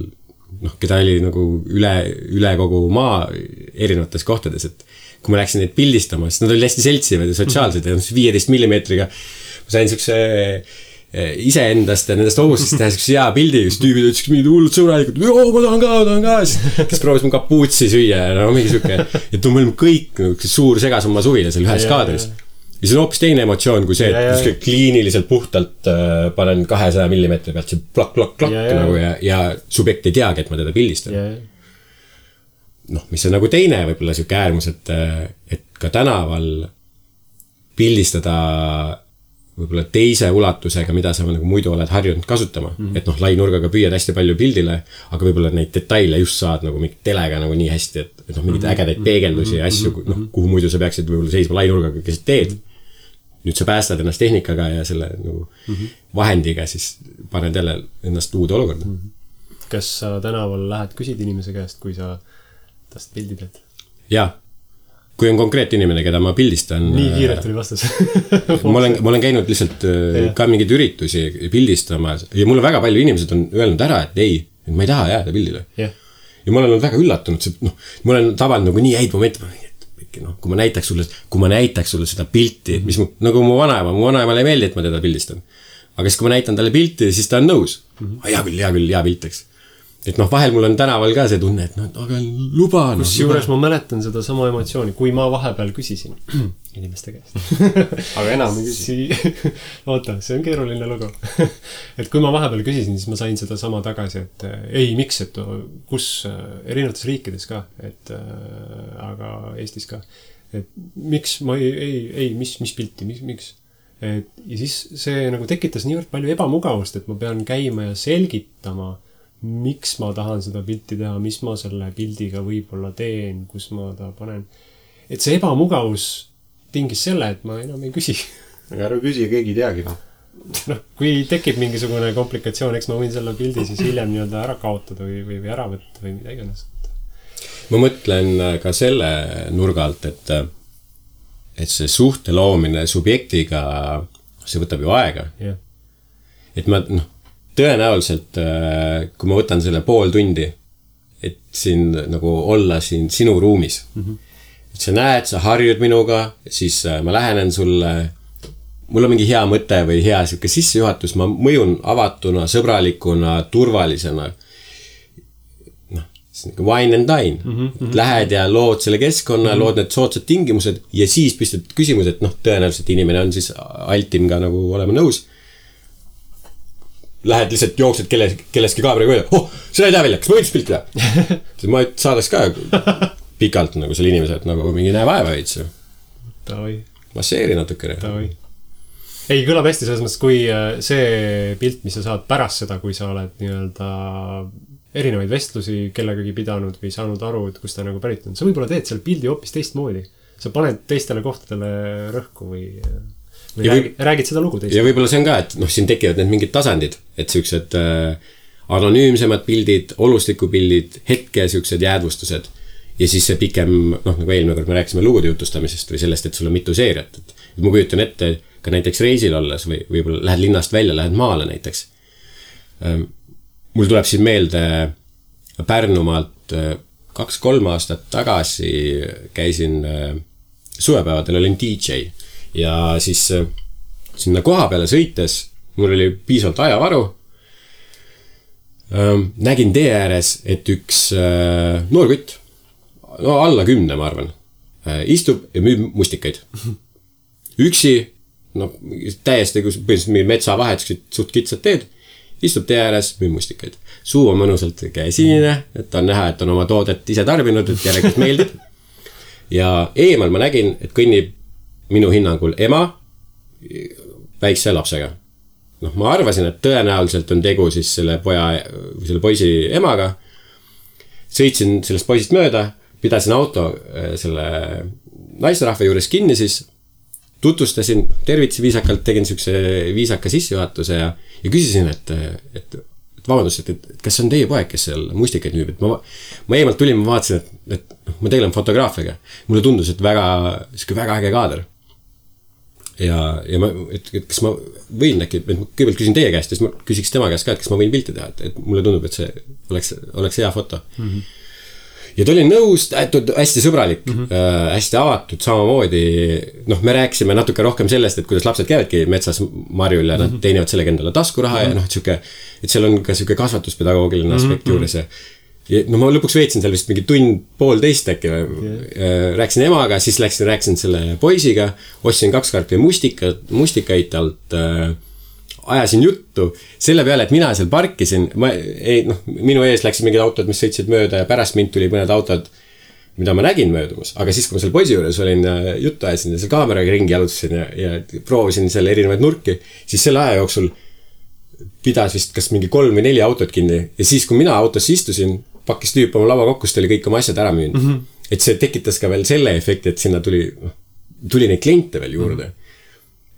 Speaker 2: keda oli nagu üle kogu maa erinevates kohtades, et kui ma läksin neid pildistama, siis nad olid hästi seltsivad ja sotsiaalsed ja 15 millimeetriga ma sain siukse iseendast ja nendest hobustest teha siukse hea pildi, kus tüübid ütlesid mingid hullud sõbralikud, ma tahan ka, kes proovis mu kapuutsi süüa ja mingi siuke, et me olime kõik suur segasumma suvile seal ühes kaadris. Ja see on hoopis teine emotsioon kui see, et kliiniliselt puhtalt panen 200 millimeetri pealt see plak nagu ja subjekt ei teagi, et ma teda pildistan. Mis on nagu teine võib-olla siuke äärmus, et ka tänaval pildistada võib-olla teise ulatusega, mida sa nagu muidu oled harjunud kasutama. Et lainurgaga püüad hästi palju pildile, aga võib-olla neid detaile just saad nagu mingit telega nagu nii hästi, et mingid ägedaid peegeldusi ja asju, kuhu muidu sa peaksid võib-olla seisma lainurgaga, kes teed. Nüüd sa päästad ennast tehnikaga ja selle nagu vahendiga, siis paned jälle ennast uude olukorda.
Speaker 3: Kas sa tänaval lähed küsid inimese käest, kui sa tast pildi teed?
Speaker 2: Jaa. Kui on konkreet inimene, keda ma pildistan.
Speaker 3: Nii kiirelt oli vastus.
Speaker 2: ma olen käinud lihtsalt ka mingeid üritusi pildistama ja mul on väga palju inimesed on öelnud ära, et ei, et ma ei taha jääda pildile. Ja ma olen olnud väga üllatunud, ma olen tabanud nagu nii häid momente, kui ma näitaks sulle seda pilti, mis nagu mu vanaemale ei meeldi, et ma teda pildistan. Aga siis, kui ma näitan talle pilti, siis ta on nõus. Hea pilt, eks. Et vahel mul on tänaval ka see tunne, et aga luba.
Speaker 3: Kusjuures ma mäletan seda sama emotsiooni, kui ma vahepeal küsisin inimeste käest.
Speaker 1: Aga enam ei küsi.
Speaker 3: Oota, see on keeruline lugu. Et kui ma vahepeal küsisin, siis ma sain seda sama tagasi, et ei, miks, et kus erinevates riikides ka, et aga Eestis ka. Et miks ma mis pilti, miks? Ja siis see nagu tekitas niivõrd palju ebamugavust, et ma pean käima ja selgitama, miks ma tahan seda pilti teha, mis ma selle pildiga võib-olla teen, kus ma ta panen. Et see ebamugavus tingis selle, et ma enam ei küsi.
Speaker 1: Aga ära küsi, keegi ei teagi.
Speaker 3: Kui tekib mingisugune komplikatsioon, eks ma võin selle pildi siis hiljem nii-öelda ära kaotada või ära võtta või mida iganes.
Speaker 2: Ma mõtlen ka selle nurga alt, et see suhte loomine subjektiga, see võtab ju aega. Et ma, tõenäoliselt, kui ma võtan selle pool tundi, et siin nagu olla siin sinu ruumis. Et sa näed, sa harjud minuga, siis ma lähenen sulle, mul on mingi hea mõte või hea siuke sissejuhatus, ma mõjun avatuna, sõbralikuna, turvalisena. Wine and dine. Lähed ja lood selle keskkonna, lood need soodsad tingimused ja siis püstad küsimus, et tõenäoliselt inimene on siis altim ka nagu olema nõus. Lähed lihtsalt jooksed kelleski kaameraga öelda, seda ei tea välja, kas ma võiks pilti teha? Ma saadaks ka pikalt nagu selle inimese, et nagu mingi näe vaeva veits. Masseeri natukene.
Speaker 3: Ei, kõlab hästi selles mõttes, kui see pilt, mis sa saad pärast seda, kui sa oled nii-öelda erinevaid vestlusi kellegagi pidanud või saanud aru, et kus ta nagu pärit on. Sa võib-olla teed seal pildi hoopis teistmoodi. Sa paned teistele kohtadele rõhku või räägid seda lugu teistele.
Speaker 2: Ja võib-olla see on ka, et siin tekivad need mingid tasandid, et siuksed anonüümsemad pildid, olustikupildid, hetke siuksed jäädvustused ja siis see pikem, nagu eelmine kord me rääkisime lugude jutustamisest või sellest, et sul on mitu seeriat. Et ma kujutan ette ka näiteks reisil olles või võib-olla lähed linnast välja, lähed maale näiteks. Mul tuleb siin meelde Pärnumaalt 2-3 aastat tagasi käisin suvepäevadel olin DJ ja siis sinna koha peale sõites mul oli piisavalt ajavaru. Nägin tee ääres, et üks noor kutt, no alla 10 ma arvan, istub ja müüb mustikaid. Üksi, no täiesti põhimõtteliselt metsa vahetused suht kitsad teed, istub tee ääres, müüb mustikaid. Suu on mõnusalt käesinine, et on näha, et on oma toodet ise tarbinud, et järelikult meeldib. Ja eemal ma nägin, et kõnnib minu hinnangul ema väikse lapsega. No, ma arvasin, et tõenäoliselt on tegu siis selle poisi emaga. Sõitsin sellest poisist mööda, pidasin auto selle naisterahva juures kinni siis, tutvustasin, tervitsi viisakalt, tegin siukse viisaka sissejuhatuse ja küsisin, et vabandust, et kas on teie poeg, kes seal mustikaid müüb, et ma eemalt tulin, ma vaatasin, et ma tegelen fotograafiaga. Mulle tundus, et väga äge kaader. Ja et kas ma võin äkki, et ma kõigepealt küsin teie käest, siis ma küsiks tema käest ka, et kas ma võin pilti teha, et mulle tundub, et see oleks hea foto. Ja ta oli nõus, hästi sõbralik, hästi avatud, samamoodi, noh, me rääkisime natuke rohkem sellest, et kuidas lapsed käivadki metsas marjul ja nad teenivad sellega endale taskuraha ja noh, et seal on ka siuke kasvatuspedagoogiline aspekt juures ja no ma lõpuks veetsin seal vist mingi tund-poolteist äkki, rääkisin emaga, siis rääkisin selle poisiga, ostsin 2 karpi mustikaid alt, ajasin juttu selle peale, et mina seal parkisin, minu ees läksid mingid autod, mis sõitsid mööda ja pärast mind tuli mõned autod, mida ma nägin möödumus, aga siis, kui ma seal poisi juures olin, juttu ajasin ja seal kaameraga ringi jalutasin ja proovisin seal erinevaid nurki, siis selle aja jooksul pidas vist kas mingi 3 või 4 autot kinni ja siis, kui mina autosse istusin, pakkis tüüp oma lava kokku, siis oli kõik oma asjad ära müünud. Et see tekitas ka veel selle efekti, et sinna tuli neid kliente veel juurde.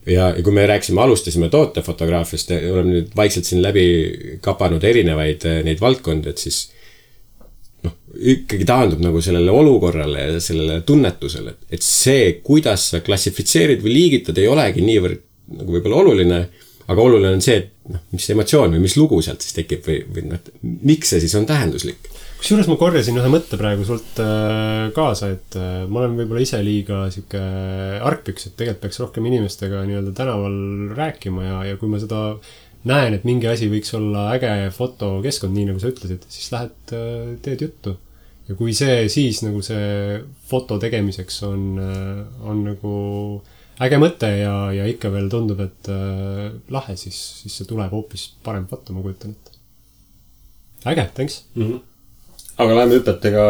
Speaker 2: Ja kui me alustasime tootefotograafiast, oleme nüüd vaikselt siin läbi kapanud erinevaid neid valdkondi, et siis ikkagi taandub nagu sellele olukorrale ja sellele tunnetusele, et see, kuidas sa klassifitseerid või liigitad, ei olegi niivõrd nagu võib-olla oluline, aga oluline on see, et mis emotsioon või mis lugu sealt siis tekib või miks see siis on tähenduslik.
Speaker 3: Kusjuures ma korjasin ühe mõtte praegu sult kaasa, et ma olen võib-olla ise liiga siuke argpüks, et tegelikult peaks rohkem inimestega nii-öelda tänaval rääkima ja kui ma seda näen, et mingi asi võiks olla äge fotokeskkond, nii nagu sa ütlesid, siis lähed teed juttu. Ja kui see siis nagu see foto tegemiseks on nagu äge mõte ja ikka veel tundub, et lahe, siis see tuleb hoopis parem foto, ma kujutan ette. Äge, thanks.
Speaker 1: Aga läheme hüpetega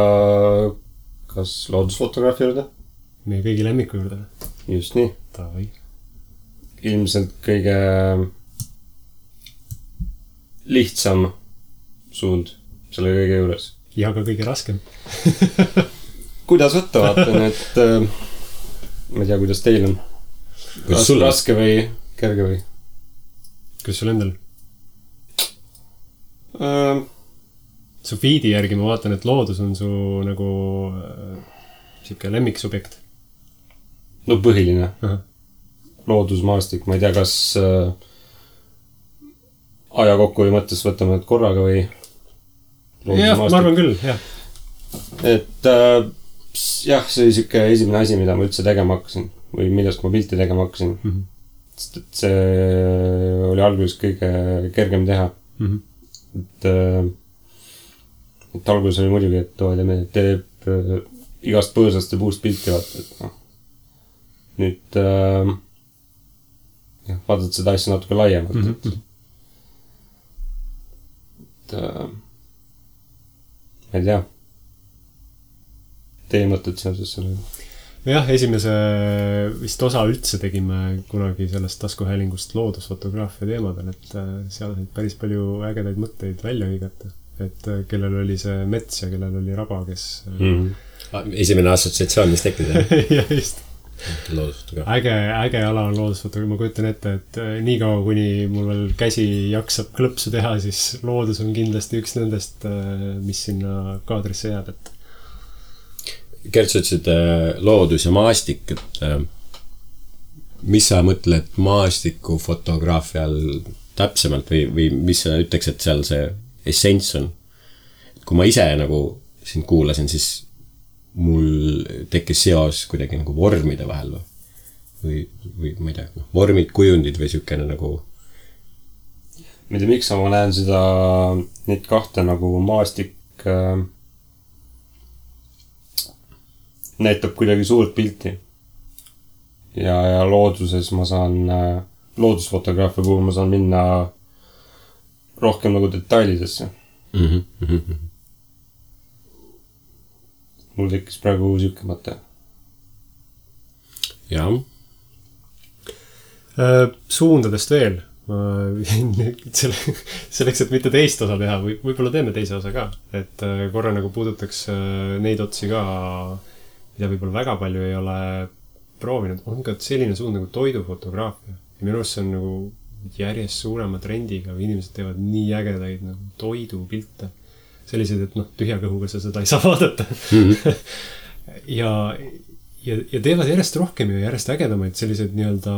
Speaker 1: kas loodusfotograafi juurde?
Speaker 3: Meie kõigi lemmiku juurde.
Speaker 1: Just nii.
Speaker 3: Tavai.
Speaker 1: Ilmselt kõige lihtsam suund selle kõige juures.
Speaker 3: Ja ka kõige raskem.
Speaker 1: Kuidas võtta, vaatan, et ma ei tea, kuidas teil on. Raske või kerge või?
Speaker 3: Kuidas sul endal? Su feedi järgi ma vaatan, et loodus on su nagu siuke lemmiksubjekt.
Speaker 1: No põhiline. Loodusmaastik, ma ei tea, kas aja kokku või mõttes võtame korraga või
Speaker 3: jah, ma arvan küll, jah.
Speaker 1: Et jah, see oli siuke esimene asi, mida ma üldse tegema hakkasin või millest ma pilti tegema hakkasin. Sest et see oli alguses kõige kergem teha. Et alguses oli muidugi, et teeb igast põõsast ja puust pilti vaata, et noh. Nüüd vaatad seda asja natuke laiemalt. Ma ei tea. Teie mõtted seoses selle?
Speaker 3: Jah, esimese vist osa üldse tegime kunagi sellest taskuhäälingust loodusfotograafia teemadel, et seal olid päris palju ägedaid mõtteid välja hõigata. Et kellel oli see mets ja kellel oli raba, kes...
Speaker 2: Esimene assotsiatsioon, mis tekkis,
Speaker 3: ja just. Äge ala on loodusfotograafia. Ma kujutan ette, et nii kaua, kuni mul veel käsi jaksab klõpsu teha, siis loodus on kindlasti üks nendest, mis sinna kaadrisse jääb.
Speaker 2: Gert, sa ütlesid loodus ja maastik, et mis sa mõtled maastiku fotograafial täpsemalt või mis sa ütleks, et seal see essents on. Kui ma ise nagu sind kuulasin, siis mul tekkis seos kuidagi nagu vormide vahel või ma ei tea, vormid, kujundid või siukene nagu.
Speaker 1: Ma ei tea, miks ma näen neid kahte nagu maastik näitab kuidagi suurt pilti. Ja looduses ma saan, loodusfotograafia puhul ma saan minna rohkem nagu detailidesse. Mul tekkis praegu siuke mõte.
Speaker 2: Jah.
Speaker 3: Suundadest veel. Selleks, et mitte teist osa teha, võib-olla teeme teise osa ka. Et korra nagu puudutaks neid otsi ka, mida võib-olla väga palju ei ole proovinud. On ka selline suund nagu toidufotograafia. Ja minu arust see on nagu järjest suurema trendiga, või inimesed teevad nii ägedaid nagu toidupilte. Sellised, et tühja kõhuga sa seda ei saa vaadata. ja teevad järjest rohkem ja järjest ägedamaid sellised nii-öelda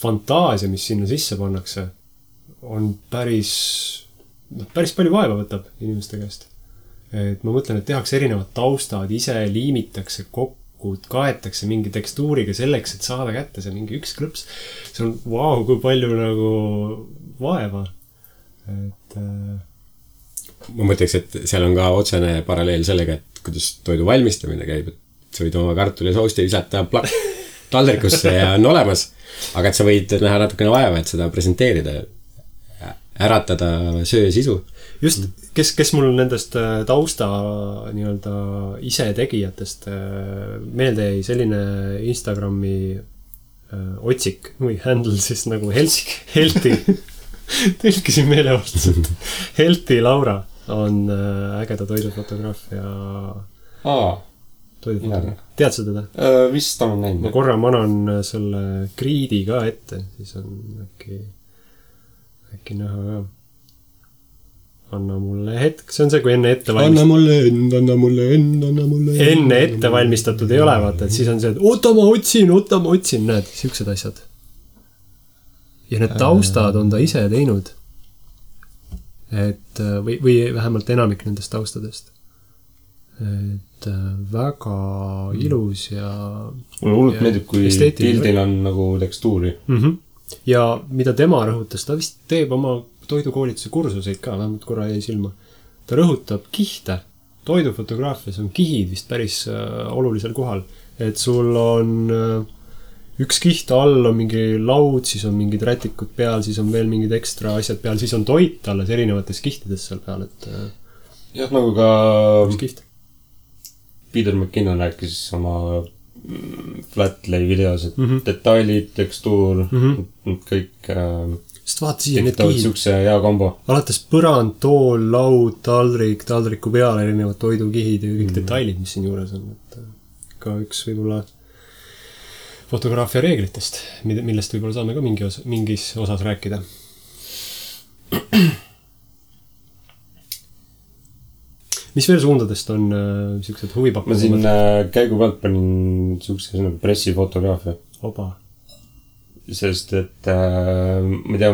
Speaker 3: fantaasia, mis sinna sisse pannakse, on päris palju vaeva võtab inimeste käest. Et ma mõtlen, et tehakse erinevad taustad, ise liimitakse kokku, kaetakse mingi tekstuuriga selleks, et saada kätte see mingi üks klõps. See on kui palju nagu vaeva. Et
Speaker 2: ma mõtleks, et seal on ka otsene paralleel sellega, et kuidas toidu valmistamine käib, et sa võid oma kartuli ja sousti visata taldrikusse ja on olemas, aga et sa võid näha natukene vaeva, et seda presenteerida, äratada söö sisu.
Speaker 3: Just, kes mul nendest tausta nii-öelda ise tegijatest meelde jäi selline Instagrami otsik või handle siis nagu Helti tõlkisin meelevaldselt. Helti Laura on ägeda toidufotograaf ja toidufotograaf. Tead sa teda?
Speaker 1: Vist on näinud.
Speaker 3: Ma korra manan selle kriidi ka ette, siis on äkki näha ka. Anna mulle hetk, see on see, kui enne ette enne ette valmistatud ei ole, vaata, et siis on see, et oota ma otsin, näed, siuksed asjad. Ja need taustad on ta ise teinud. Et, või vähemalt enamik nendest taustadest. Et väga ilus ja
Speaker 1: mulle hullult meeldib, kui pildil on nagu tekstuuri.
Speaker 3: Ja mida tema rõhutas, ta vist teeb oma toidukoolituse kursuseid ka, vähemalt korra jäi silma. Ta rõhutab kihte. Toidufotograafias on kihid vist päris olulisel kohal. Et sul on üks kiht all on mingi laud, siis on mingid rätikud peal, siis on veel mingid ekstra asjad peal, siis on toit alles erinevates kihtides seal peal, et
Speaker 1: jah, nagu ka
Speaker 3: üks kiht.
Speaker 1: Peter McKinnon rääkis oma flatlay videos, et detailid, tekstuur, kõik
Speaker 3: sest vaata siia need
Speaker 1: kihid. Siukse hea kombo.
Speaker 3: Alates põrand, tool, laud, taldriku peal erinevad toidukihid ja kõik detailid, mis siin juures on. Et ka üks võib-olla fotograafia reeglitest, millest võib-olla saame ka mingis osas rääkida. Mis veel suundadest on siuksed huvipakkuvad?
Speaker 1: Ma siin käigu pealt panin siukse nagu pressifotograafia.
Speaker 3: Oba.
Speaker 1: Sest, et ma tea,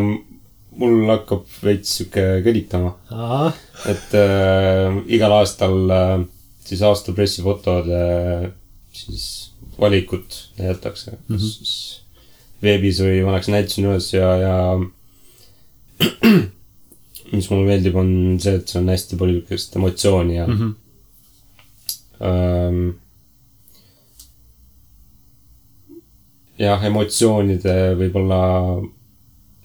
Speaker 1: mul hakkab veits siuke kõditama. Et igal aastal siis aasta pressifotode siis valikut näidatakse. Siis veebis või vanaks näitasin üles ja mis mulle meeldib on see, et see on hästi palju emotsiooni ja jah, emotsioonide võib-olla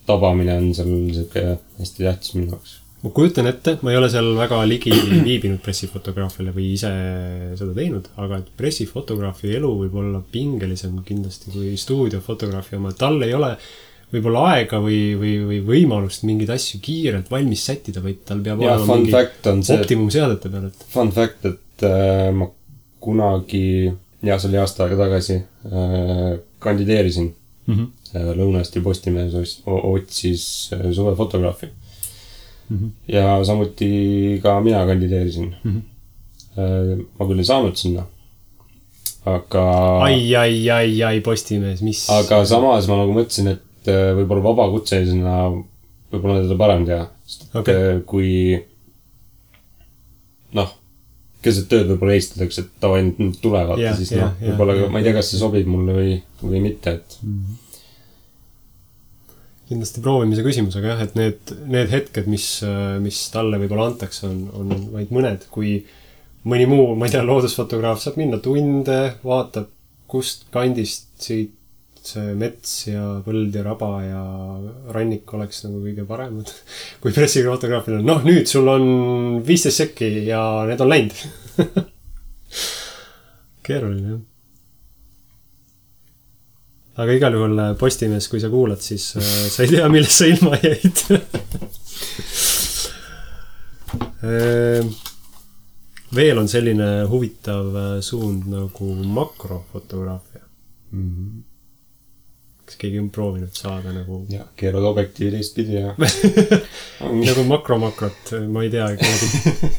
Speaker 1: tabamine on seal selline hästi tähtis minu jaoks.
Speaker 3: Ma kujutan ette, ma ei ole seal väga ligi viibinud pressifotograafiale või ise seda teinud, aga et pressifotograafi elu võib olla pingelisem kindlasti kui stuudiofotograafi oma. Tal ei ole võib-olla aega või võimalust mingeid asju kiirelt valmis sättida, vaid tal peab olema mingi optimum seadete peal.
Speaker 1: Fun fact, et ma kunagi, ja see oli aasta aega tagasi, kandideerisin. Lõuna-Eesti Postimees otsis suvefotograafi. Ja samuti ka mina kandideerisin. Ma küll ei saanud sinna. Aga
Speaker 3: ai, Postimees, mis?
Speaker 1: Aga samas ma nagu mõtlesin, et võib-olla vabakutselisena võib-olla teda parem teha. Sest kui keset tööd võib-olla heistatakse, et tava ainult tulevad ja siis noh, võib-olla ma ei tea, kas see sobib mulle või mitte, et
Speaker 3: kindlasti proovimise küsimus, aga jah, et need hetked, mis talle võib-olla antakse, on vaid mõned, kui mõni muu, ma ei tea, loodusfotograaf saab minna tunde, vaatab, kust kandist siit see mets ja põld ja raba ja rannik oleks nagu kõige paremad. Kui pressifotograafil on, nüüd sul on 15 sekki ja need on läinud. Keeruline, jah. Aga igal juhul Postimees, kui sa kuulad, siis sa ei tea, millest sa ilma jäid. Veel on selline huvitav suund nagu makrofotograafia. Kas keegi on proovinud saada nagu...
Speaker 1: Ja, keerad objektiivi teistpidi ja...
Speaker 3: nagu makromakrot, ma ei tea,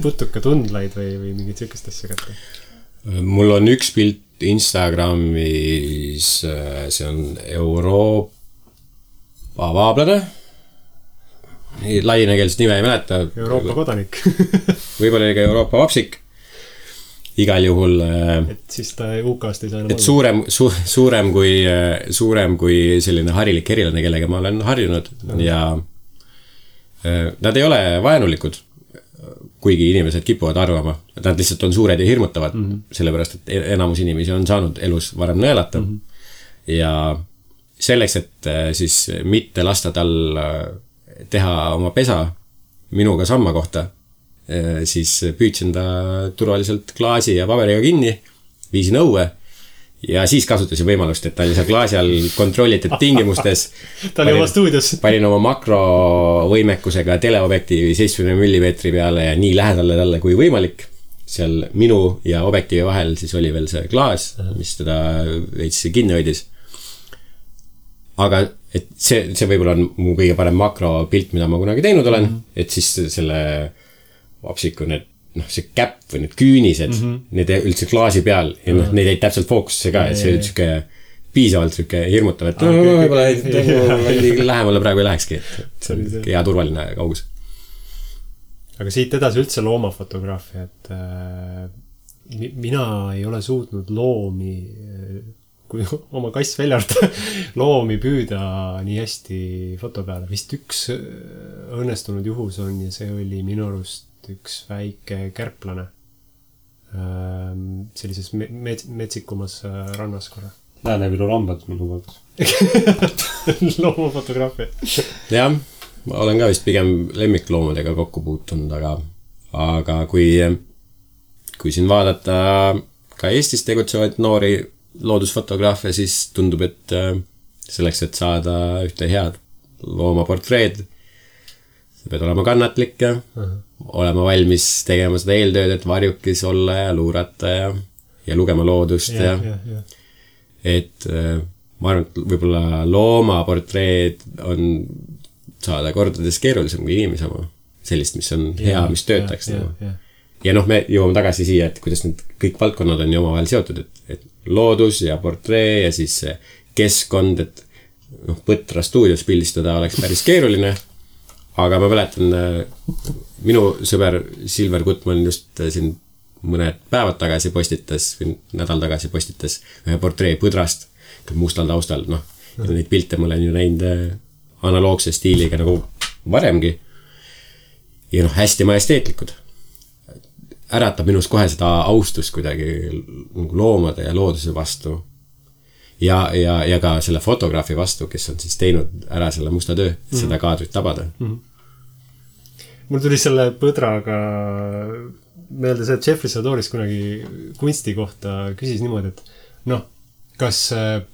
Speaker 3: putuka tundlaid või mingit sükest asja kätte.
Speaker 2: Mul on üks pilt Instagramis, see on Euroopa vaablane. Laienekeelset nime ei mäleta.
Speaker 3: Euroopa kodanik.
Speaker 2: Võib-olla ka Euroopa vapsik. Igal juhul...
Speaker 3: Et siis ta UK-st ei saa enam
Speaker 2: et suurem kui selline harilik erilane, kellega ma olen harjunud ja nad ei ole vaenulikud, kuigi inimesed kipuvad arvama, et nad lihtsalt on suured ja hirmutavad, sellepärast, et enamus inimesi on saanud elus varem nõelata ja selleks, et siis mitte lasta tal teha oma pesa minuga samma kohta, siis püüdsin ta turvaliselt klaasi ja paberiga kinni, viisin õue ja siis kasutasin võimalust, et ta oli seal klaasi all kontrollitud tingimustes.
Speaker 3: Ta oli oma stuudios.
Speaker 2: Panin oma makrovõimekusega teleobjektiivi 70 mm peale ja nii lähedale talle kui võimalik. Seal minu ja objektiivi vahel siis oli veel see klaas, mis teda veits kinni hoidis. Aga et see võib-olla on mu kõige parem makropilt, mida ma kunagi teinud olen, et siis selle vapsiku need, see käpp või need küünised, need üldse klaasi peal ja need jäid täpselt fookusse ka, et see oli tšuke piisavalt tšuke hirmutav, et võib-olla lähemale praegu ei lähekski, et hea turvaline kaugus.
Speaker 3: Aga siit edasi üldse loomafotograafia, et mina ei ole suutnud loomi, kui oma kass väljata, loomi püüda nii hästi foto peale. Vist üks õnnestunud juhus on ja see oli minu arust üks väike kärplane sellises metsikumas rannas korra.
Speaker 1: Lääne-Viru lambad minu poolt.
Speaker 3: Loomafotograafia.
Speaker 2: Jah, ma olen ka vist pigem lemmikloomadega kokku puutunud, aga kui siin vaadata ka Eestis tegutsevaid noori loodusfotograafe, siis tundub, et selleks, et saada ühte head loomaportreed, sa pead olema kannatlik ja olema valmis tegema seda eeltööd, et varjukis olla ja luurata ja lugema loodust ja. Et ma arvan, et võib-olla loomaportreed on saada kordades keerulisem kui inimese oma. Sellist, mis on hea, mis töötaks. Ja me jõuame tagasi siia, et kuidas need kõik valdkonnad on ju omavahel seotud, et loodus ja portree ja siis keskkond, et Põtra stuudios pildistada oleks päris keeruline. Aga ma mäletan, minu sõber Silver Gutman just siin mõned päevad tagasi postitas, nädal tagasi postitas ühe portree Põdrast, mustal taustal, ja neid pilte ma olen ju näinud analoogse stiiliga nagu varemgi. Ja hästi majesteetlikud. Äratab minus kohe seda austust kuidagi loomade ja looduse vastu. Ja ka selle fotograafi vastu, kes on siis teinud ära selle musta töö, seda kaadrit tabada.
Speaker 3: Mul tuli selle Põdraga meelde see, et Jeffrey Sadoris kunagi kunsti kohta küsis niimoodi, et kas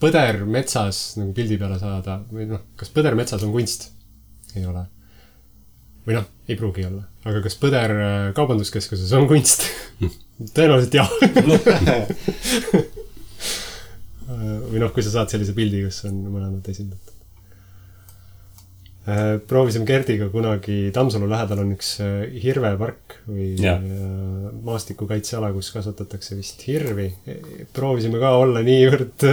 Speaker 3: põder metsas nagu pildi peale saada või kas põder metsas on kunst? Ei ole. Või ei pruugi olla. Aga kas põder kaubanduskeskuses on kunst? Tõenäoliselt jah. Või kui sa saad sellise pildi, kus on mõlemad esindatud. Proovisime Gerdiga kunagi Tammsalu lähedal on üks hirvepark või maastikukaitseala, kus kasvatatakse vist hirvi. Proovisime ka olla niivõrd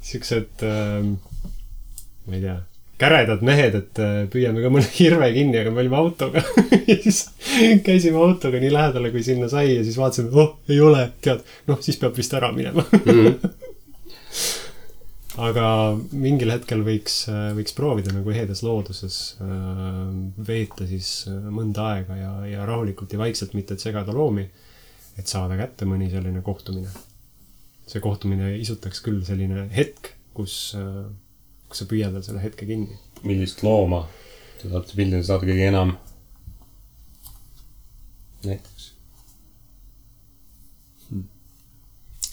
Speaker 3: siuksed, ma ei tea, käredad mehed, et püüame ka mõne hirve kinni, aga me olime autoga ja siis käisime autoga nii lähedale, kui sinna sai ja siis vaatasime, ei ole, tead, siis peab vist ära minema. Aga mingil hetkel võiks proovida nagu ehedas looduses veeta siis mõnda aega ja rahulikult ja vaikselt, mitte et segada loomi, et saada kätte mõni selline kohtumine. See kohtumine isutaks küll selline hetk, kus sa püüad veel selle hetke kinni.
Speaker 1: Millist looma te saate pildile saada kõige enam? Näiteks.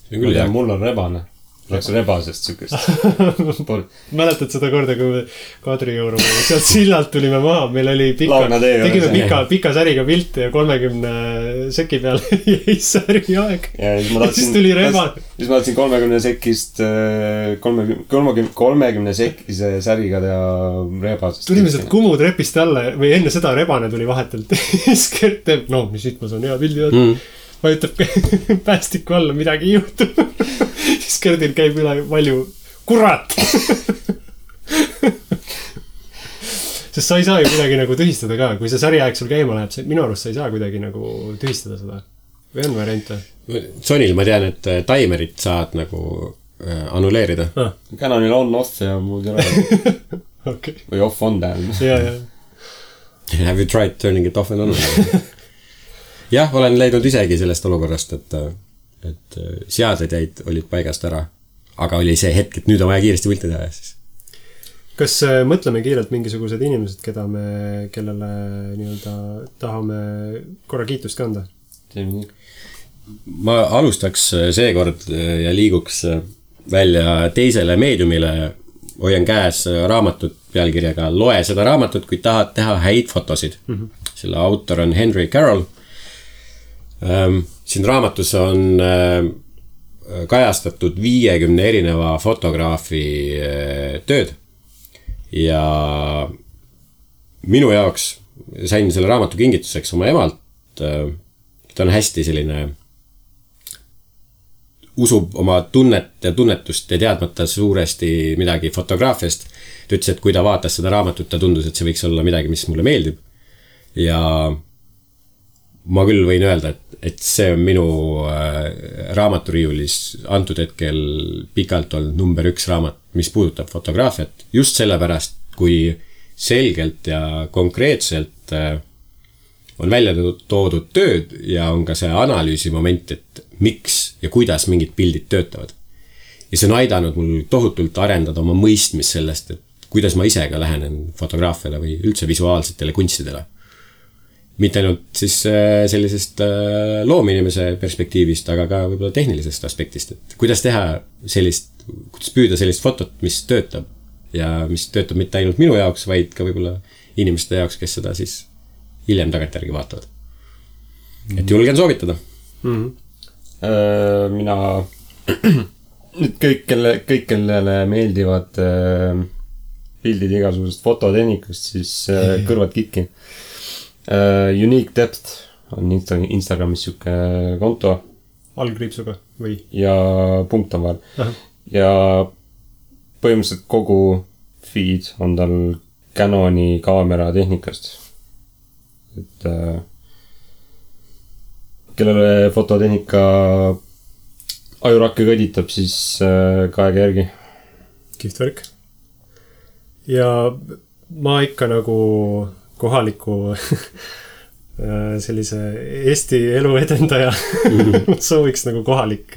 Speaker 2: See on küll hea.
Speaker 1: Mul on rebane. Läks rebasest sükest.
Speaker 3: Mäletad seda korda, kui me Kadrioruma sealt sillalt tulime maha, meil oli tegime pika säriga pilte ja 30 seki peal jäi säri aeg. Ja siis tuli rebane.
Speaker 1: Siis ma tahtsin 30 sekist 30 sekise säriga ja rebasest.
Speaker 3: Tulime sealt Kumu trepist alla või enne seda rebane tuli vahetelt. Skert teeb, mis siit ma saan hea pildi vajutab päästiku alla, midagi ei juhtu. Siis Gerdil käib üle palju kurat. Sest sa ei saa ju kuidagi nagu tühistada ka. Kui see säriaeg sul käima läheb, minu arust sa ei saa kuidagi nagu tühistada seda. Või on variante?
Speaker 2: Sonil ma tean, et timerit saad nagu annuleerida.
Speaker 1: Canonil on off ja muud ei ole.
Speaker 3: Okay.
Speaker 1: Või off on tähendab.
Speaker 3: Ja.
Speaker 2: Have you tried turning it off and on? Jah, olen leidnud isegi sellest olukorrast, et seaded olid paigast ära, aga oli see hetk, et nüüd on vaja kiiresti pilti teha siis.
Speaker 3: Kas mõtleme kiirelt mingisugused inimesed, kellele nii-öelda tahame korra kiitust kanda?
Speaker 2: Ma alustaks seekord ja liiguks välja teisele meediumile, hoian käes raamatut pealkirjaga Loe seda raamatut, kui tahad teha häid fotosid. Selle autor on Henry Carroll. Siin raamatus on kajastatud 50 erineva fotograafi tööd ja minu jaoks sain selle raamatu kingituseks oma emalt. Ta on hästi selline, usub oma tunnet ja tunnetust ja teadmata suuresti midagi fotograafiast. Ta ütles, et kui ta vaatas seda raamatut, ta tundus, et see võiks olla midagi, mis mulle meeldib. Ja ma küll võin öelda, et see on minu raamaturiiulis antud hetkel pikalt olnud number 1 raamat, mis puudutab fotograafiat. Just sellepärast, kui selgelt ja konkreetselt on välja toodud tööd ja on ka see analüüsi moment, et miks ja kuidas mingid pildid töötavad. Ja see on aidanud mul tohutult arendada oma mõistmist sellest, et kuidas ma ise ka lähenen fotograafiale või üldse visuaalsetele kunstidele. Mitte ainult siis sellisest loominimese perspektiivist, aga ka võib-olla tehnilisest aspektist, et kuidas teha kuidas püüda sellist fotot, mis töötab ja mis töötab mitte ainult minu jaoks, vaid ka võib-olla inimeste jaoks, kes seda siis hiljem tagantjärgi vaatavad. Et julgen soovitada.
Speaker 1: Mina nüüd kõik, kellele meeldivad pildid igasugusest fototehnikust, siis kõrvad kitki. Unique Depth on Instagramis siuke konto.
Speaker 3: Algriipsuga või? Ja
Speaker 1: punkt on vahel. Ja põhimõtteliselt kogu feed on tal Canoni kaamera tehnikast. Et kellele fototehnika ajurakke kõditab, siis kaega järgi.
Speaker 3: Kihvt värk. Ja ma ikka nagu kohaliku sellise Eesti elu edendaja sooviks nagu kohalik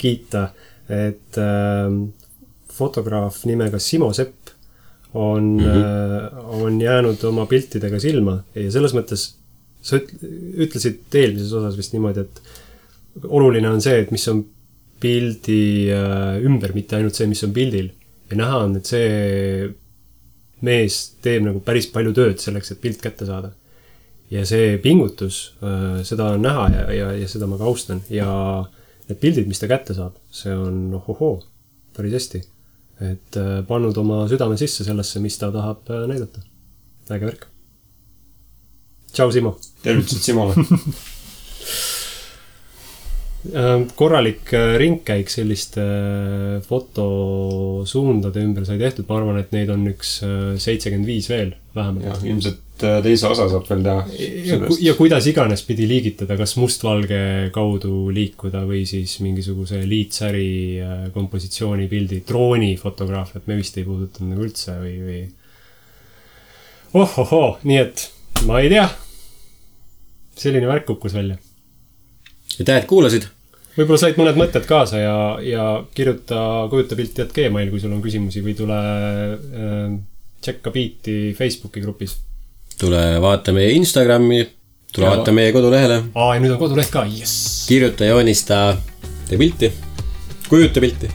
Speaker 3: kiita, et fotograaf nimega Simo Sepp on jäänud oma piltidega silma ja selles mõttes sa ütlesid eelmises osas vist niimoodi, et oluline on see, et mis on pildi ümber, mitte ainult see, mis on pildil ja näha on, et see mees teeb nagu päris palju tööd selleks, et pilt kätte saada. Ja see pingutus, seda on näha ja seda ma ka austan. Ja need pildid, mis ta kätte saab, see on päris hästi. Et pannud oma südame sisse sellesse, mis ta tahab näidata. Äge värk. Tšau, Simo!
Speaker 1: Tervitused Simole!
Speaker 3: korralik ringkäik selliste fotosuundade ümber sai tehtud, ma arvan, et neid on üks 75 veel vähemalt.
Speaker 1: Ja, ilmselt teise osa saab veel teha.
Speaker 3: Ja kuidas iganes pidi liigitada, kas mustvalge kaudu liikuda või siis mingisuguse liitsäri kompositsiooni pildi, droonifotograafiat me vist ei puudutanud nagu üldse või... nii et ma ei tea. Selline värk kukkus välja.
Speaker 2: Aitäh, et kuulasid.
Speaker 3: Võib-olla said mõned mõtted kaasa ja kirjuta kujutapilti@gmail, kui sul on küsimusi või tule tšekka Beati Facebooki grupis.
Speaker 2: Tule vaata meie Instagrami, tule vaata meie kodulehele.
Speaker 3: Ja nüüd on koduleht ka, yes!
Speaker 2: Kirjuta, joonista, tee pilti, kujuta pilti.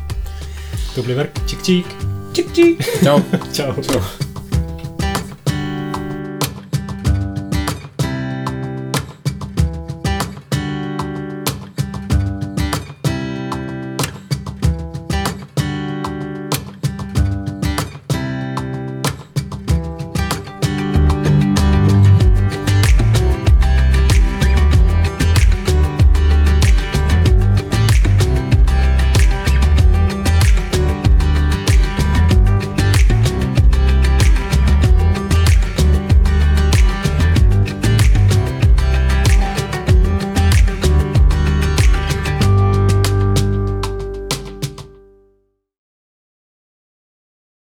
Speaker 3: Tubli värk, tšik-tšik. Tšik-tšik.
Speaker 2: Ciao.
Speaker 3: Ciao.